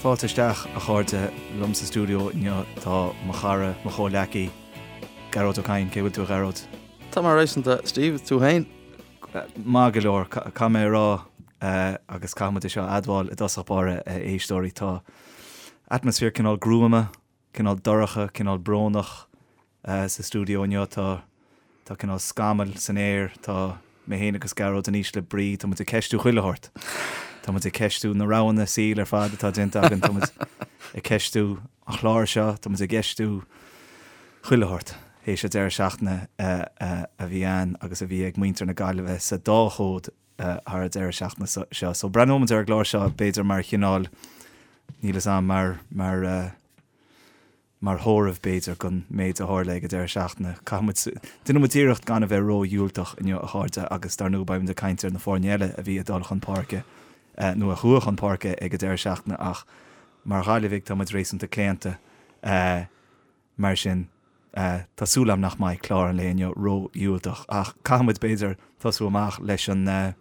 Fáilte isteach, a chairde, liom sa stiúideo inniu tá mo chara, mo chomhleacaí, Gearóid Ó Cadhain. Cén chaoi a bhfuil tú, a Ghearóid? Tá mé réasúnta, Steve, tú féin? Maith go leor, caithfidh mé a rá, agus caithfidh muid é seo a admháil i dtosach báire, a éisteoirí, tá atmaisféar cineál gruama, cineál dorcha, cineál brónach sa stiúideo inniu. Tá tá cineál scamaill san aer, tá mé féin agus Gearóid in ísle brí, tá muid ag ceistiú chuile shórt. Tá muid ag ceistiú na roghanna saoil ar fad atá déanta againn, tá muid ag ceistiú an chláir seo, tá muid ag ceistiú chuile shórt théis an deireadh seachtaine a bhí ann agus a bhí ag muintir na Gaillimhe sa dá chód thar an deireadh seachtaine seo. So breathnóidh muid ar an gclár seo b'fhéidir mar chineál, níl fhios a'm, mar, mar, mar thórramh b'fhéidir don méid a tharla ag an deireadh seachtaine. Caithfidh muid, déanfaidh muid iarracht gan a bheith ró-dhiúltach inniu a chairde agus dar ndóigh beidh muid ag caint ar na foirne eile a bhí ag dul chun páirce nó a chuaigh chun páirce ag an deireadh seachtaine ach mar Ghaillimhigh tá muid réasúnta claonta. Mar sin, tá súil agam nach mbeidh clár an lae inniu ró-dhiúltach, ach caithfidh muid, b'fhéidir, tosú amach leis an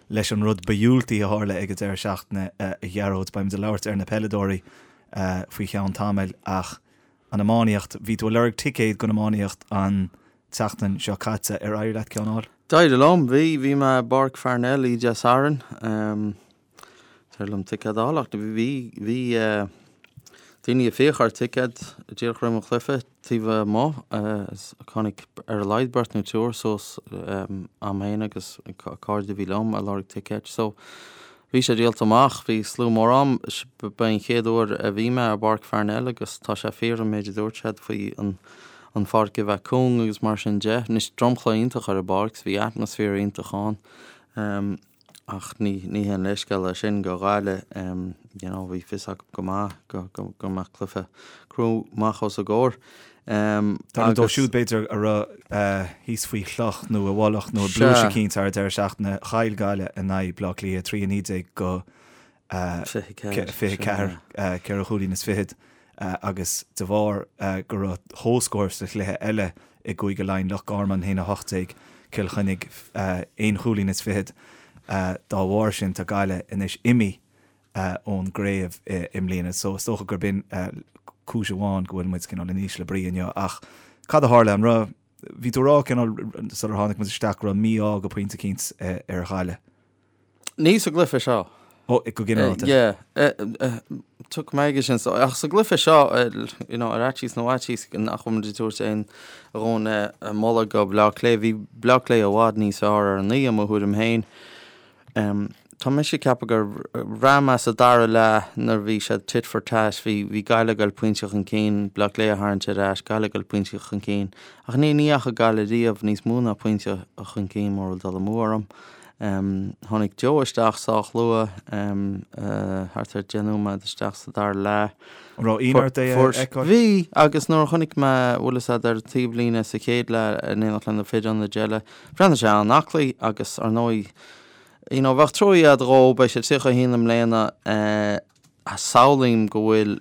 leis an rud ba dhiúltaí a tharla ag an deireadh seachtaine, a Ghearóid. Beidh muid ag labhairt ar na peileadóirí faoi cheann tamaill, ach an iománaíocht, bhí tú ag lorg ticéad don iománaíocht an tseachtain seo caite, ar éirigh leat ceann a fháil? D'éirigh liom, bhí. Bhí mé i bPáirc Pharnell oíche Dé Sathairn. D'éirigh liom ticéad a fháil ach bhí, bhí daoine ag fiach ar ticéad díreach roimh an chluiche taobh amuigh. Tháinig ar a laghad beirt nó triúr suas a'm féin agus cairde a bhí liom ag lorg ticéid. So bhí sé díolta amach, bhí slua mór ann. Ba é an chéad uair a bhí mé i bPáirc Pharnell agus tá sé fíor an méid a dúirt siad faoi an an pháirc a bheith cúng agus mar sin de. Anois dromchla iontach ar an bpáirc, bhí atmaisféar iontach ann. Ach ní ní haon leithscéal é sin go Ghaillimh, you know, bhí fios acu go maith go go go mbeadh cluiche crua amach os a gcomhair. Dar ndóigh dóibh siúd b'fhéidir a raibh thíos faoi chloch nó i bhfolach nó i bpluais eicínt thar an deireadh seachtaine, chaill Gaillimh in aghaidh Bleá Cliath 3 19 go 24, 4 chúilín is fichead, agus de bharr go raibh comhscór sa chluiche eile i gCúige Laighean, Loch Garman 1 18, Cill Chainnigh aon chúilín is fichead, dá bharr sin tá Gaillimh anois imithe ón gcraobh i mbliana. So is dócha gurb in cúis amháin go bhfuil muid cineál in ísle brí inniu. Ach cad a tharla? An raibh, bhí tú ag rá cineál sular tháinig muid isteach go raibh mí-ádh go pointe eicínt ar Ghaillimh. Ní sa gcluiche seo. Ó, go ginearálta. Yeah. Tiocfaidh mé aige sin. So, ach sa gcluiche seo, you know, ar fhaitíos nó fhaitíos nach bhfuil muid ag tabhairt aon dhóthain moladh go Bleá Cliath. Bhí Bleá Cliath i bhfad níos fearr ar an oíche, i mo thuairim féin. Tá mise ag ceapadh gur bhraith mé sa dara leath nuair a bhí siad tit for tat, bhí, bhí Gaillimh ag dul pointe chun cinn, Bleá Cliath a tharraingt ar ais, Gaillimh ag dul pointe chun cinn. Ach ní, ní dheachaigh Gaillimh riamh níos mó ná pointe chun cinn mura bhfuil dul amú orm. Tháinig Joe isteach sách luath, thart ar 10 nóiméad isteach sa dara leath. An raibh ionadh ort é a fheiceáil? Bhí, agus nuair a chonaic mé, bhfuil fhios a'd, ar an taobhlíne sa chéad leath in éineacht le na fir ionaid eile, bhreathnaigh sé an-aclaí agus, ar ndóigh, you know, bheadh truaí a'd dhó, beidh sé 31 i mbliana, Samhlaím go bhfuil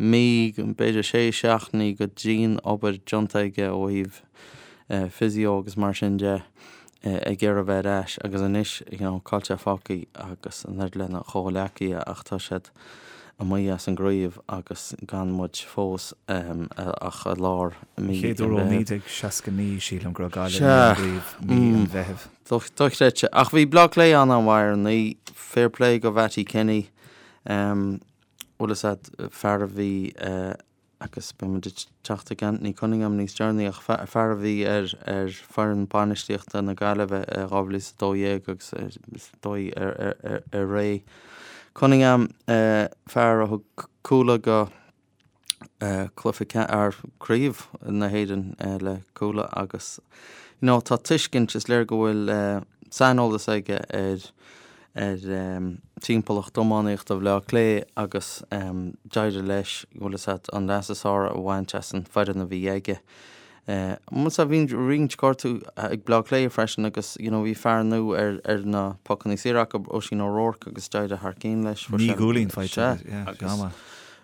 mí, b'fhéidir sé seachtainí de dhian-obair déanta aige ó thaobh physio agus mar sin de ag iarraidh bheith ar ais agus anois you know cá bhfuil sé fágtha agus an oiread lena chomhghleacaithe ach tá siad amuigh as an gcraobh agus gan muid fós ach i lár mí an Mheithimh. Chéad uair ó 1969 sílim go raibh Gaillimh amuigh ón gcraobh mí an Mheithimh. Dochreidte. Ach bhí Bleá Cliath an-an-mhaith ar an oíche. Fair play go Mhattie Kenny. Bhfuil fhios a'd, fear a bhí, agus beidh muid ag teacht ag Anthony Cunningham níos deireanaí, ach fear a bhí ar ar foireann bainistíochta na Gaillimhe i 2012 agus is dóigh ar ré Cunningham, fear a thug Cuala go cluiche ar craobh na hÉireann le Cuala agus you know tá tuiscint, is léir go bhfuil saineolas aige ar ar timpeallacht iománaíochta Bhaile Átha Cliath agus d'éirigh leis, bhfuil fhios a'd, an leas is fearr a bhaint as an foireann a bhí aige. Sea, bhí roinnt gortú ag Bleá Cliath freisin agus you know bhí fear nua ar ar na pocanna saora acu, Oisín O'Rourke agus d'éirigh thar cinn leis. Fuair sé. Naoi gcúilín faighte aige, yeah, agus go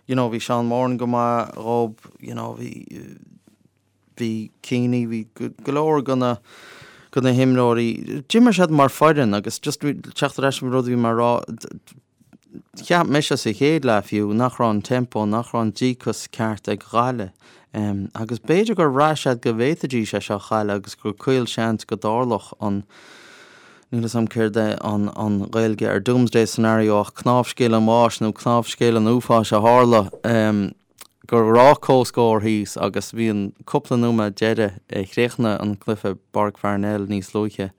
you know bhí Seán Moran go maith dhób, you know bhí bhí Keaney, bhí go leor de na de na himreoirí, d'imir siad mar foireann agus just teacht ar ais an rud a bhí mé a rá. Cheap mise sa chéad leath fiú nach raibh an tempo, nach raibh an díocas ceart ag Gaillimh. Agus b'fhéidir gur bhraith siad go bhféadfaidís é seo a chailleadh agus gur caolseans go dtarlódh an, níl 'fhios a'm céard é an an Ghaeilge ar doomsday scenario ach cnámhscéal an bháis nó cnámhscéal an uafáis a tharla. Go raibh comhscór thíos agus bhí an cúpla nóiméad deiridh, chríochnaigh an cluiche i bPáirc Pharnell níos luaithe,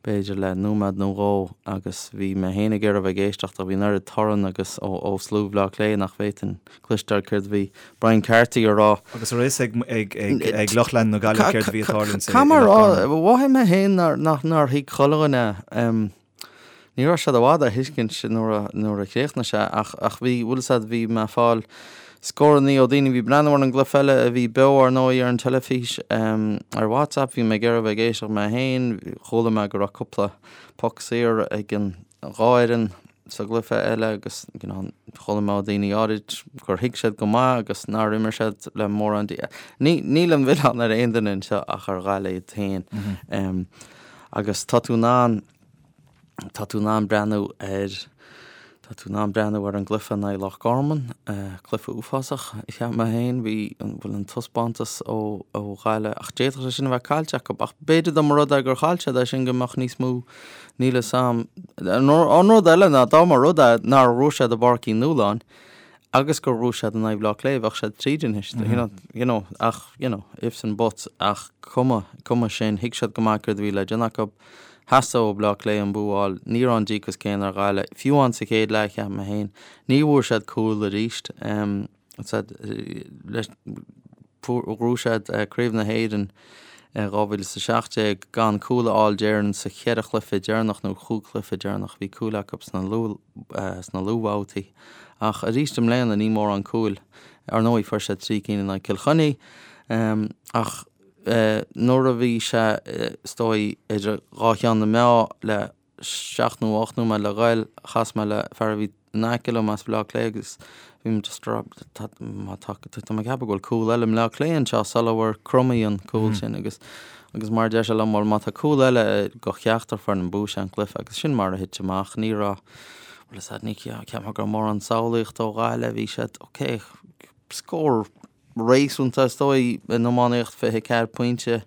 b'fhéidir le nóiméad nó dhó agus bhí mé féin ag iarraidh a bheith ag éisteacht ach bhí an oiread torann agus ó ó slua Bhaile Átha Cliath nach bhféadfainn cloisteáil céard a bhí Brian Carthy a rá. Agus an raibh a fhios ag ag ag lucht leanúna na Gaillimhe céard a bhí ag tarlúint i Loch Garman? Mhothaigh mé féin nár nach nár thuig chuile dhuine. Ní raibh siad i bhfad á thuiscint nuair a nuair a chríochnaigh sé ach ach bhí, bhfuil 'fhios a'd, bhí mé ag fáil scórannaí ó daoine a bhí ag breathnú ar an gcluiche eile a bhí beo ar ndóigh ar an teilifís ar WhatsApp, bhí mé ag iarraidh a bheith ag éisteacht mé féin, chuala mé go raibh cúpla poc saor ag an dhá fhoireann sa gcluiche eile agus you know chuala mé ó daoine áirid gur thuig siad go maith agus nár imir siad le mórán dí Ní níl an milleán ar aon duine anseo ach ar Ghaillimh iad féin. Agus tá tú in ann, tá tú in ann breathnú ar, tá tú in ann breathnú ar an gcluiche in aghaidh Loch Garman, cluiche uafásach, cheap mé féin, bhí, bhuel an taispeántas ó, ó Ghaillimh, ach d'fhéadfadh sé sin a bheith caillte acu, ach b'fhéidir dá mba rud é gur chaill siad é sin go mbeadh níos mó, níl 'fhios a'm. An rud eile ná dá mba rud é nár bhuaigh siad i bPáirc Uí Nualláin, agus gur bhuaigh siad in aghaidh Bhaile Átha Cliath, bheadh siad tríd anois, you know, you know, ach, you know, ifs and buts, ach cuma, cuma sin, thuig siad go maith céard a bhí le déanamh acu, theastaigh ó Bhaile Átha Cliath an bua a fháil, ní raibh an díocas céanna ar Ghaillimh, fiú amháin sa chéad leath, cheap mé féin, ní bhfuair siad cúl arís, em, said, leis, Ghnóthaigh siad Craobh na hÉireann in 2017 gan cúl a fháil déarfainn sa cheithre chluiche deireanach nó chúig chluiche deireanach. Bhí cúil acu sna luathbhabhtaí ach arís i mbliana ní mórán cúil. Ar ndóigh fuair siad 3 cinn in aghaidh Cill Chainnigh ach nuair a bhí sé is dóigh idir dhá cheann na meá le 7 nó 8 nóiméad le ghoil, chas mé le fear a bhí in aice liom as Baile Átha Cliath agus bhí mé just rá tá má tá tá mé ag ceapadh go bhfuil cúl eile i mBleá Cliath anseo sula bhfuair Crummey an cúl sin agus agus mar a deir sé liom bhuel má tá cúl eile go cheachtar foireann buafaidh sé an cluiche agus sin mar a thit amach ní raibh bhuel is ní cheap mé go raibh mórán samhlaíochta ó Ghaillimh bhí siad ok scór réasúnta is dóigh in iománaíocht 24 pointe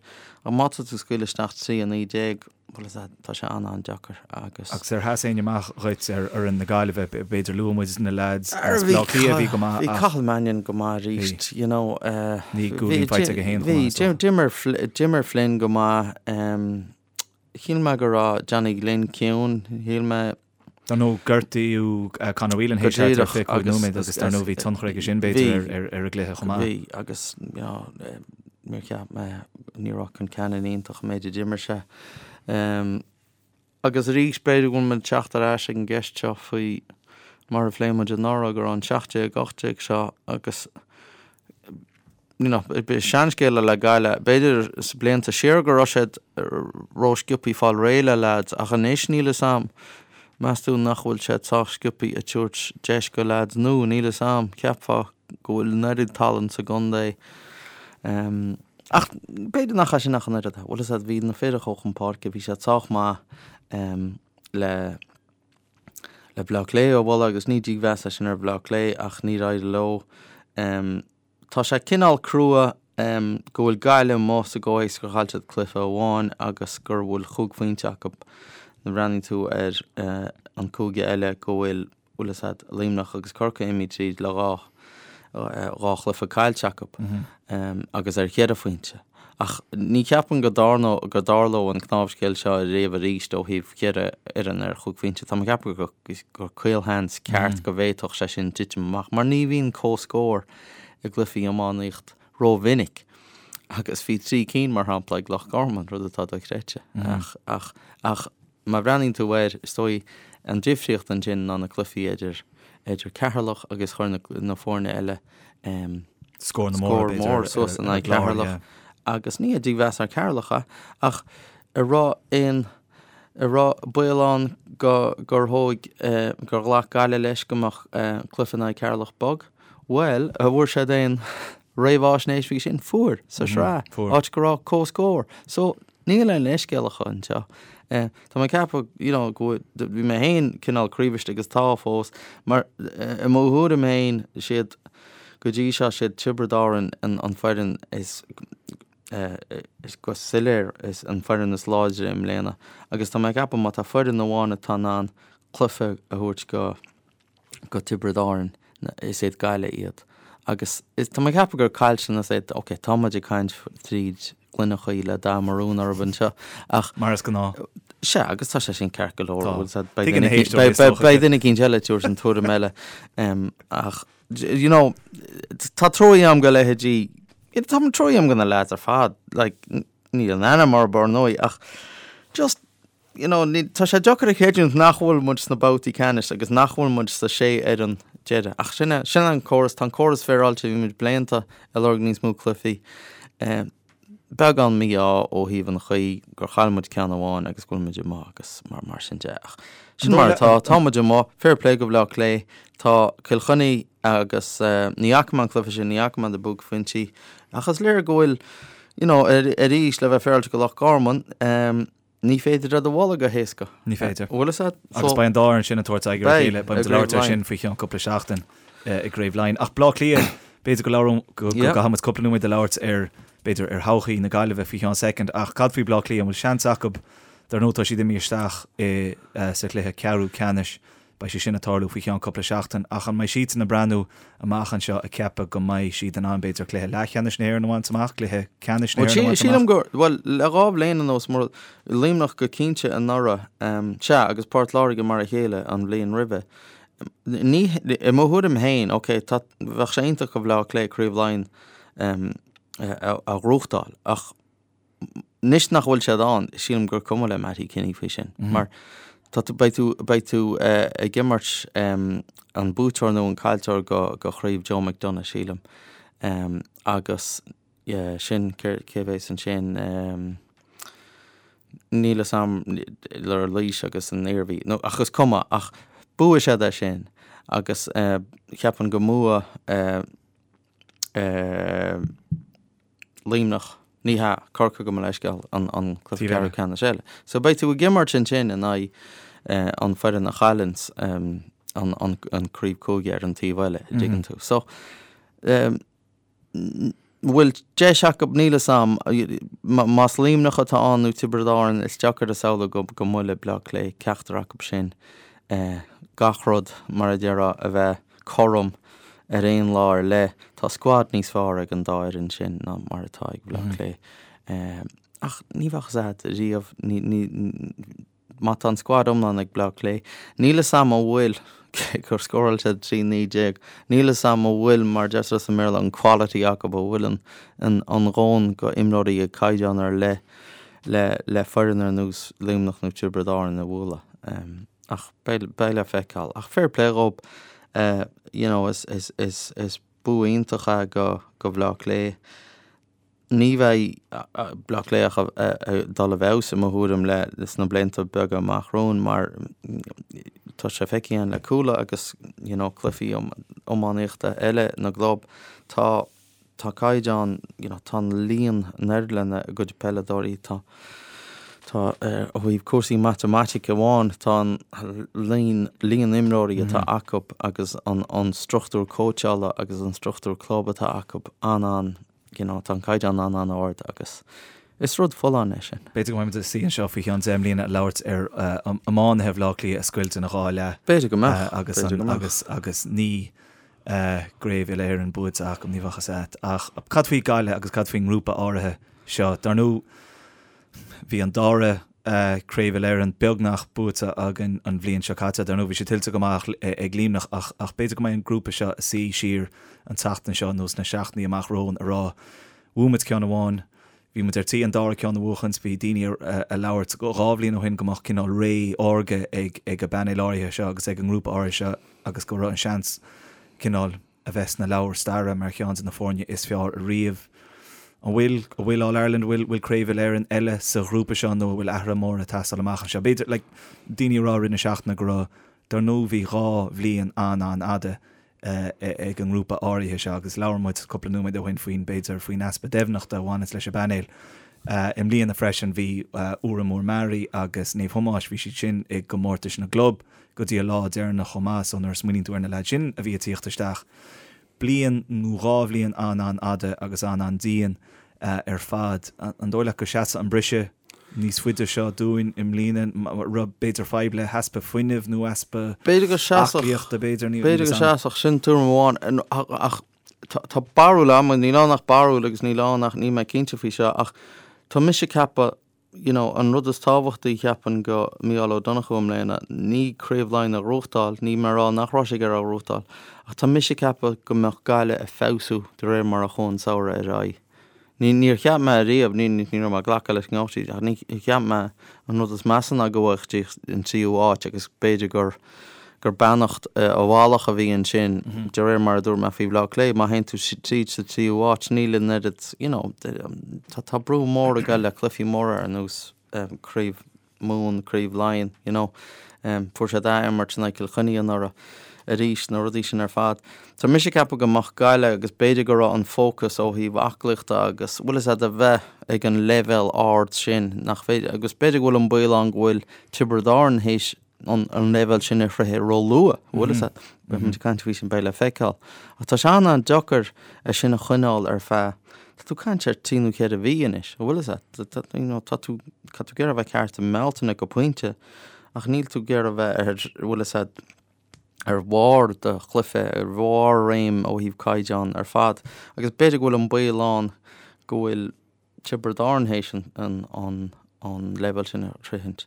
ach má tá tú ag scaoileadh isteach 3 19 bhuel is ea tá sé an-an-deacair agus. Agus ar sheas éinne amach dhuit ar fhoireann na Gaillimhe, b'fhéidir luaigh muid na leaids as Baile Átha Cliath a bhí go maith ach. Bhí Cathal Mannion go maith arís, you know. Bhí cúilín faighte aige féin chomh maith is dócha. Bhí, d'imir Flynn go maith. Shíl mé go raibh Johnny Glynn ciúin, shíl mé. Dar ndóigh gortaíodh Conor Whelan théis thart ar 25 nóiméad agus dar ndóigh bhí tionchar aige sin b'fhéidir ar an gcluiche chomh maith. Bhí agus you know níor cheap mé, ní raibh Concannon iontach an méid a d'imir sé. Agus arís b'fhéidir go bhfuil muid ag teacht ar ais ag an gceist seo faoi mar a phléigh muid anuraidh go raibh an 17, 18 seo agus you know, seanscéal le Gaillimh, b'fhéidir sna blianta siar go raibh siad ró-sciobthaí fáil réidh le leaids ach anois níl 'fhios a'm, meas tú nach bhfuil siad sách sciobthaí ag tabhairt deis go leaids nua, níl 'fhios a'm, cheapfá go bhfuil an oiread tallann sa gcontae um, ach b'fhéidir nach é sin ach an oiread, bhfuil 'fhios a'd, bhí na fir a chuaigh chun páirce, bhí siad sách maith um, le le Bleá Cliath a bhualadh agus ní dímheas é sin ar Bhleá Cliath ach níor éirigh leo. Um, Tá sé cineál crua go bhfuil Gaillimh amuigh sa gcomhthéacs gur chaill siad cluiche amháin agus gur bhfuil chúig phointe acu. Nuair a bhreathnaíonn tú ar an cúige eile go bhfuil, bhfuil 'fhios a'd, Luimneach agus Corcaigh imithe tríd le dhá dhá chluiche caillte acu agus ar cheithre phointe. Ach ní cheapaim go dtarlódh go dtarlódh an cnámhscéal seo riamh arís ó thaobh cheithre fhoireann ar chúig phointe. Tá mé ag ceapadh gur caolsheans ceart go bhféadfadh sé sin titim amach mar ní bhíonn comhscór i gcluichí iománaíocht rómhinic agus bhí 3 cinn mar shampla ag Loch Garman, rud atá dochreidte. Ach ach ach má bhreathnaíonn tú air, is dóigh an difríocht ansin ná na cluichí idir idir Ceatharlach agus chuir na na foirne eile Scór na mór, scór mór suas in aghaidh Cheatharlach agus ní dímheas ar Cheatharlach é ach an raibh aon an raibh baol ann go gur thóg gur ghlac Gaillimh leis go mbeadh cluiche in aghaidh Ceatharlach bog? Bhuel, an bhfuair siad aon réamhaisnéis faoi sin? Fuair, sa sraith, áit go raibh comhscór. So. Níl aon leithscéal acu anseo. Tá mé ag ceapadh, you know, go bhfuil, bhí mé féin cineál craobhaiste agus tá fós, mar i mo thuairim féin, siad, go dtí seo, siad Tiobraid Árann an foireann is, is go soiléir is an foireann is láidre i mbliana agus tá mé ag ceapadh má tá foireann amháin atá in ann cluiche a thabhairt go go Tiobraid Árann, is iad Gaillimh iad. Agus is, tá mé ag ceapadh gur caillteanas é, ok, tá muid ag caint tríd gloine chuí le dath marún orthu anseo, ach. Mar is gnáth. Sea, agus tá sé sin ceart go leor, Tá. bhfuil 'fhios a'd, beidh Tuigeann na duine, héisteoirí is dócha. beidh duine eicínt eile ag tabhairt an tuairim eile, ach, you know, tá truaí a'm go leithéidí, tá truaí a'm go na lads ar fad, like, níl an ainm orthu ar ndóigh, ach just, you know, ní, tá sé deacair a chreidiúint nach bhfuil muid sna babhtaí ceannais agus nach bhfuil muid sa sé fhoireann deiridh. Ach sin é, sin é an córas, tá an córas féaráilte, bhí muid blianta ag lorg níos mó cluichí. Eh, beagán mí-ádh ó thaobh an chaoi gur chaill muid ceann amháin agus go bhfuil muid amuigh agus mar, mar sin de. Ach sin mar atá, tá muid amuigh, fair play go Bhaile Átha Cliath, tá Cill Chainnigh agus eh, ní fhaca mé an cluiche sin, ní fhaca mé na buaicphointí, ach is léir go bhfuil, you know, arís le bheith féaráilte go Loch Garman, eh, Ní féidir iad a bhualadh go héasca. Ní féidir. Bhfuil fhios a'd? Agus beidh an dá fhoireann sin ag tabhairt aghaidh ar a chéile. Beidh muid ag labhairt air sin faoi cheann cúpla seachtain i gCraobh Laighean. Ach Bleá Cliath, b'fhéidir go labhróidh, go gcaithfidh muid cúpla nóiméad a labhairt ar, b'fhéidir, ar thodhchaí na Gaillimhe faoi cheann soicind. Ach cad faoi Bleá Cliath? An bhfuil seans acu? Dar ndóigh tá siad imithe isteach i sa chluiche ceathrú ceannais. Beidh sé sin ag tarlú faoi cheann cúpla seachtain, ach an mbeidh siadsan ag breathnú amach anseo ag ceapadh go mbeidh siad in ann, b'fhéidir, cluiche leathcheannais na hÉireann a bhaint amach, cluiche ceannais na Bhuel, hÉireann a bhaint amach? sílim gur, bhuel, le dhá bhliain anuas, mar Luimneach go cinnte anuraidh, sea, agus Port Láirge mar a chéile an bhliain roimhe. Ní, i mo thuairim féin, ok, tá, bheadh sé iontach do Bhaile Átha Cliath Craobh Laighean a ghnóthachtáil, ach Anois nach bhfuil siad ann, sílim gur cuma le Mattie Kenny faoi sin, mar tá tú, beidh tú, beidh tú ag imirt an buaiteoir nó an caillteoir go, go Chraobh Joe McDonagh, sílim. Agus sin, cé, cé a bheas ansin, níl fhios a'm le Laois agus an Iarmhí, nó, ach is cuma, ach buafaidh siad é sin agus cheapfainn go mbuafaidh Luimneach, ní hea, Corcaigh gabh mo leithscéal, an cluiche ceathrú ceannais eile. So beidh tú ag imirt ansin in aghaidh an foireann a chailleanns an craobh cúige ar an taobh eile, an dtuigeann tú. So bhfuil deis acu, níl fhios a'm, más Luimneach atá ann nó Tiobraid Árann, is deacair a shamhlú go mbuailfidh Bleá Cliath ceachtar acu sin gach rud, mar a déarfá, a bheith cothrom ar aon lá ar leith. Tá scuad níos fearr ag an dá fhoireann sin ná mar atá ag Bleá Cliath. Ach ní bheadh fhios a'd riamh, má tá an scuad iomlán ag Bleá Cliath, níl fhios a'm an bhfuil, cé gur scóráil siad 13 19, níl fhios a'm an bhfuil, mar a deirtear sa mBéarla, an quality acu, an bhfuil an an dhóthain go imreoirí ag caighdeán ar leith le le foireann ar nós Luimneach nó Tiobraid Árann a bhualadh. Ach beidh le feiceáil. Ach fair play dhób, you know, is, is, is, is bua iontach é go, go Bhleá Cliath. Ní bheidh Bleá Cliath ach ag dul i bhfeabhas i mo thuairim le, sna blianta beaga amach romhainn mar tá sé feicthe againn le Cuala agus, you know, cluichí iománaíochta eile na gclub. Tá Tá caighdeán, you know, tá an líon in airde lena gcuid peileadóirí, tá, tá, ó thaobh cúrsaí matamaitice amháin, tá an líon, líon imreoirí atá acu agus an, an struchtúr cóitseála agus an struchtúr club atá acu an-an, you know, tá an caighdeán an-an-ard agus is rud folláin é sin. B'fhéidir go mbeidh muid ag suí anseo faoi cheann 10 mbliana ag labhairt ar iománaithe Bhaile Átha Cliath a scoilt ina dhá leath. B'fhéidir go mbeadh, agus, b'fhéidir go mbeadh. agus, agus ní, Craobh Uile-Éireann buaite acu, ní bheadh fhios a'd. Ach cad faoi Gaillimh agus cad faoin ngrúpa áirithe seo? Dar ndóigh, bhí an dara Craobh Uile-Éireann beagnach buaite againn an bhliain seo caite. Dar ndóigh, bhí sé tuillte go maith ag Luimneach ach ach b'fhéidir go mbeidh an grúpa seo ag suí siar an tseachtain seo nó sna seachtainí amach romhainn a rá, bhuaigh muid ceann amháin, Bhí muid ar tí an dara ceann a bhuachaint. Bhí daoine ag labhairt dhá bhliain ó shin go mbeadh cineál ré órga ag ag an bpainéal áirithe seo agus ag an ngrúpa áirithe seo agus go raibh an seans cineál a bheith sna leabhair staire mar cheann de na foirne is fearr ariamh. An bhfuil, an bhfuil All Ireland, an bhfuil, bhfuil Craobh Uile-Éireann eile sa ghrúpa seo nó an bhfuil athruithe móra ag teastáil amach anseo? B'fhéidir, like, daoine ag rá i rith na seachtaine go raibh, dar ndóigh bhí dhá bhliain an-an-fhada ag an ngrúpa áirithe seo agus labhair muid cúpla nóiméad ó shin faoin, b'fhéidir, faoin easpa deimhneachta a bhaineas leis an bpainéal. I mbliana freisin bhí Órán Mór Meáraí agus Naomh Thomáis, bhí siad sin i gcomórtais na gclub go dtí an lá deireanach chomh maith so nuair a smaoiníonn tú ar na leaids sin a bhí ag tíocht isteach, bliain nó dhá bhliain an-an-fhada agus an-an-dian ar fad. An dóigh leat go seasfaidh an briseadh níos faide seo dúinn i mbliana, raibh b'fhéidir fadhb le heaspa fuinnimh nó easpa aclaíochta b'fhéidir? B'fhéidir go seasfadh, sin tuairim amháin ach tá barúil agam, níl ann ach barúil agus níl ann ach níl mé cinnte faoi seo ach tá mise ag ceapadh you know an rud is tábhachtaí cheapfainn go Mícheál Ó Donnchú i mbliana ní Craobh Laighean a ghnóthachtáil, níl mé ag rá nach raibh sé ag iarraidh a ghnóthachtáil ach tá mise ag ceapadh go mbeadh Gaillimh ag feabhsú de réir mar a chuaigh an samhradh ar aghaidh. Ní, níor cheap mé ariamh, ní, ní raibh mé ag glacadh leis go ngabhfaidh siad, ach ní cheap mé an rud is measa ná go bhfaigheadh siad an tríú háit agus b'fhéidir gur, gur beannacht i bhfalach a bhí ansin, de réir mar a dúirt mé faoi Bhaile Átha Cliath, má théann tú tríd sa tríú háit, níl an oiread, you know, tá, tá brú mór ag dul le cluichí móra ar nós Craobh Mumhan, Craobh Laighean, you know. Fuair siad ath-imirt in aghaidh Cill Chainnigh anuraidh arís, na rudaí sin ar fad. Tá mise ag ceapadh go mbeadh Gaillimh agus b'fhéidir go raibh an fócas ó thaobh aclaíochta agus, bhfuil fhios a'd, a bheith ag an leibhéal ard sin nach féidir, agus b'fhéidir go bhfuil an baol ann go bhfuil Tiobraid Árann théis an leibhéal sin a shroicheadh ró-luath, bhfuil fhios a'd. Beidh muid ag caint faoi sin, beidh le feiceáil. Ach tá sé an-an-deacair é sin a choinneáil ar feadh, tá tú ag caint ar trí nó cheithre mhí anois, bhfuil fhios a'd. Tá, you know, tá tú, tá tú ag iarraidh a bheith ceart i mBealtaine go pointe, ach níl tú ag iarraidh a bheith ar, bhfuil fhios a'd, ar bharr do chluiche, ar bharr réim ó thaobh caighdeán ar fad. Agus b'fhéidir go bhfuil an baol ann go bhfuil Tiobraid Árann théis an leibhéal sin a shroichint.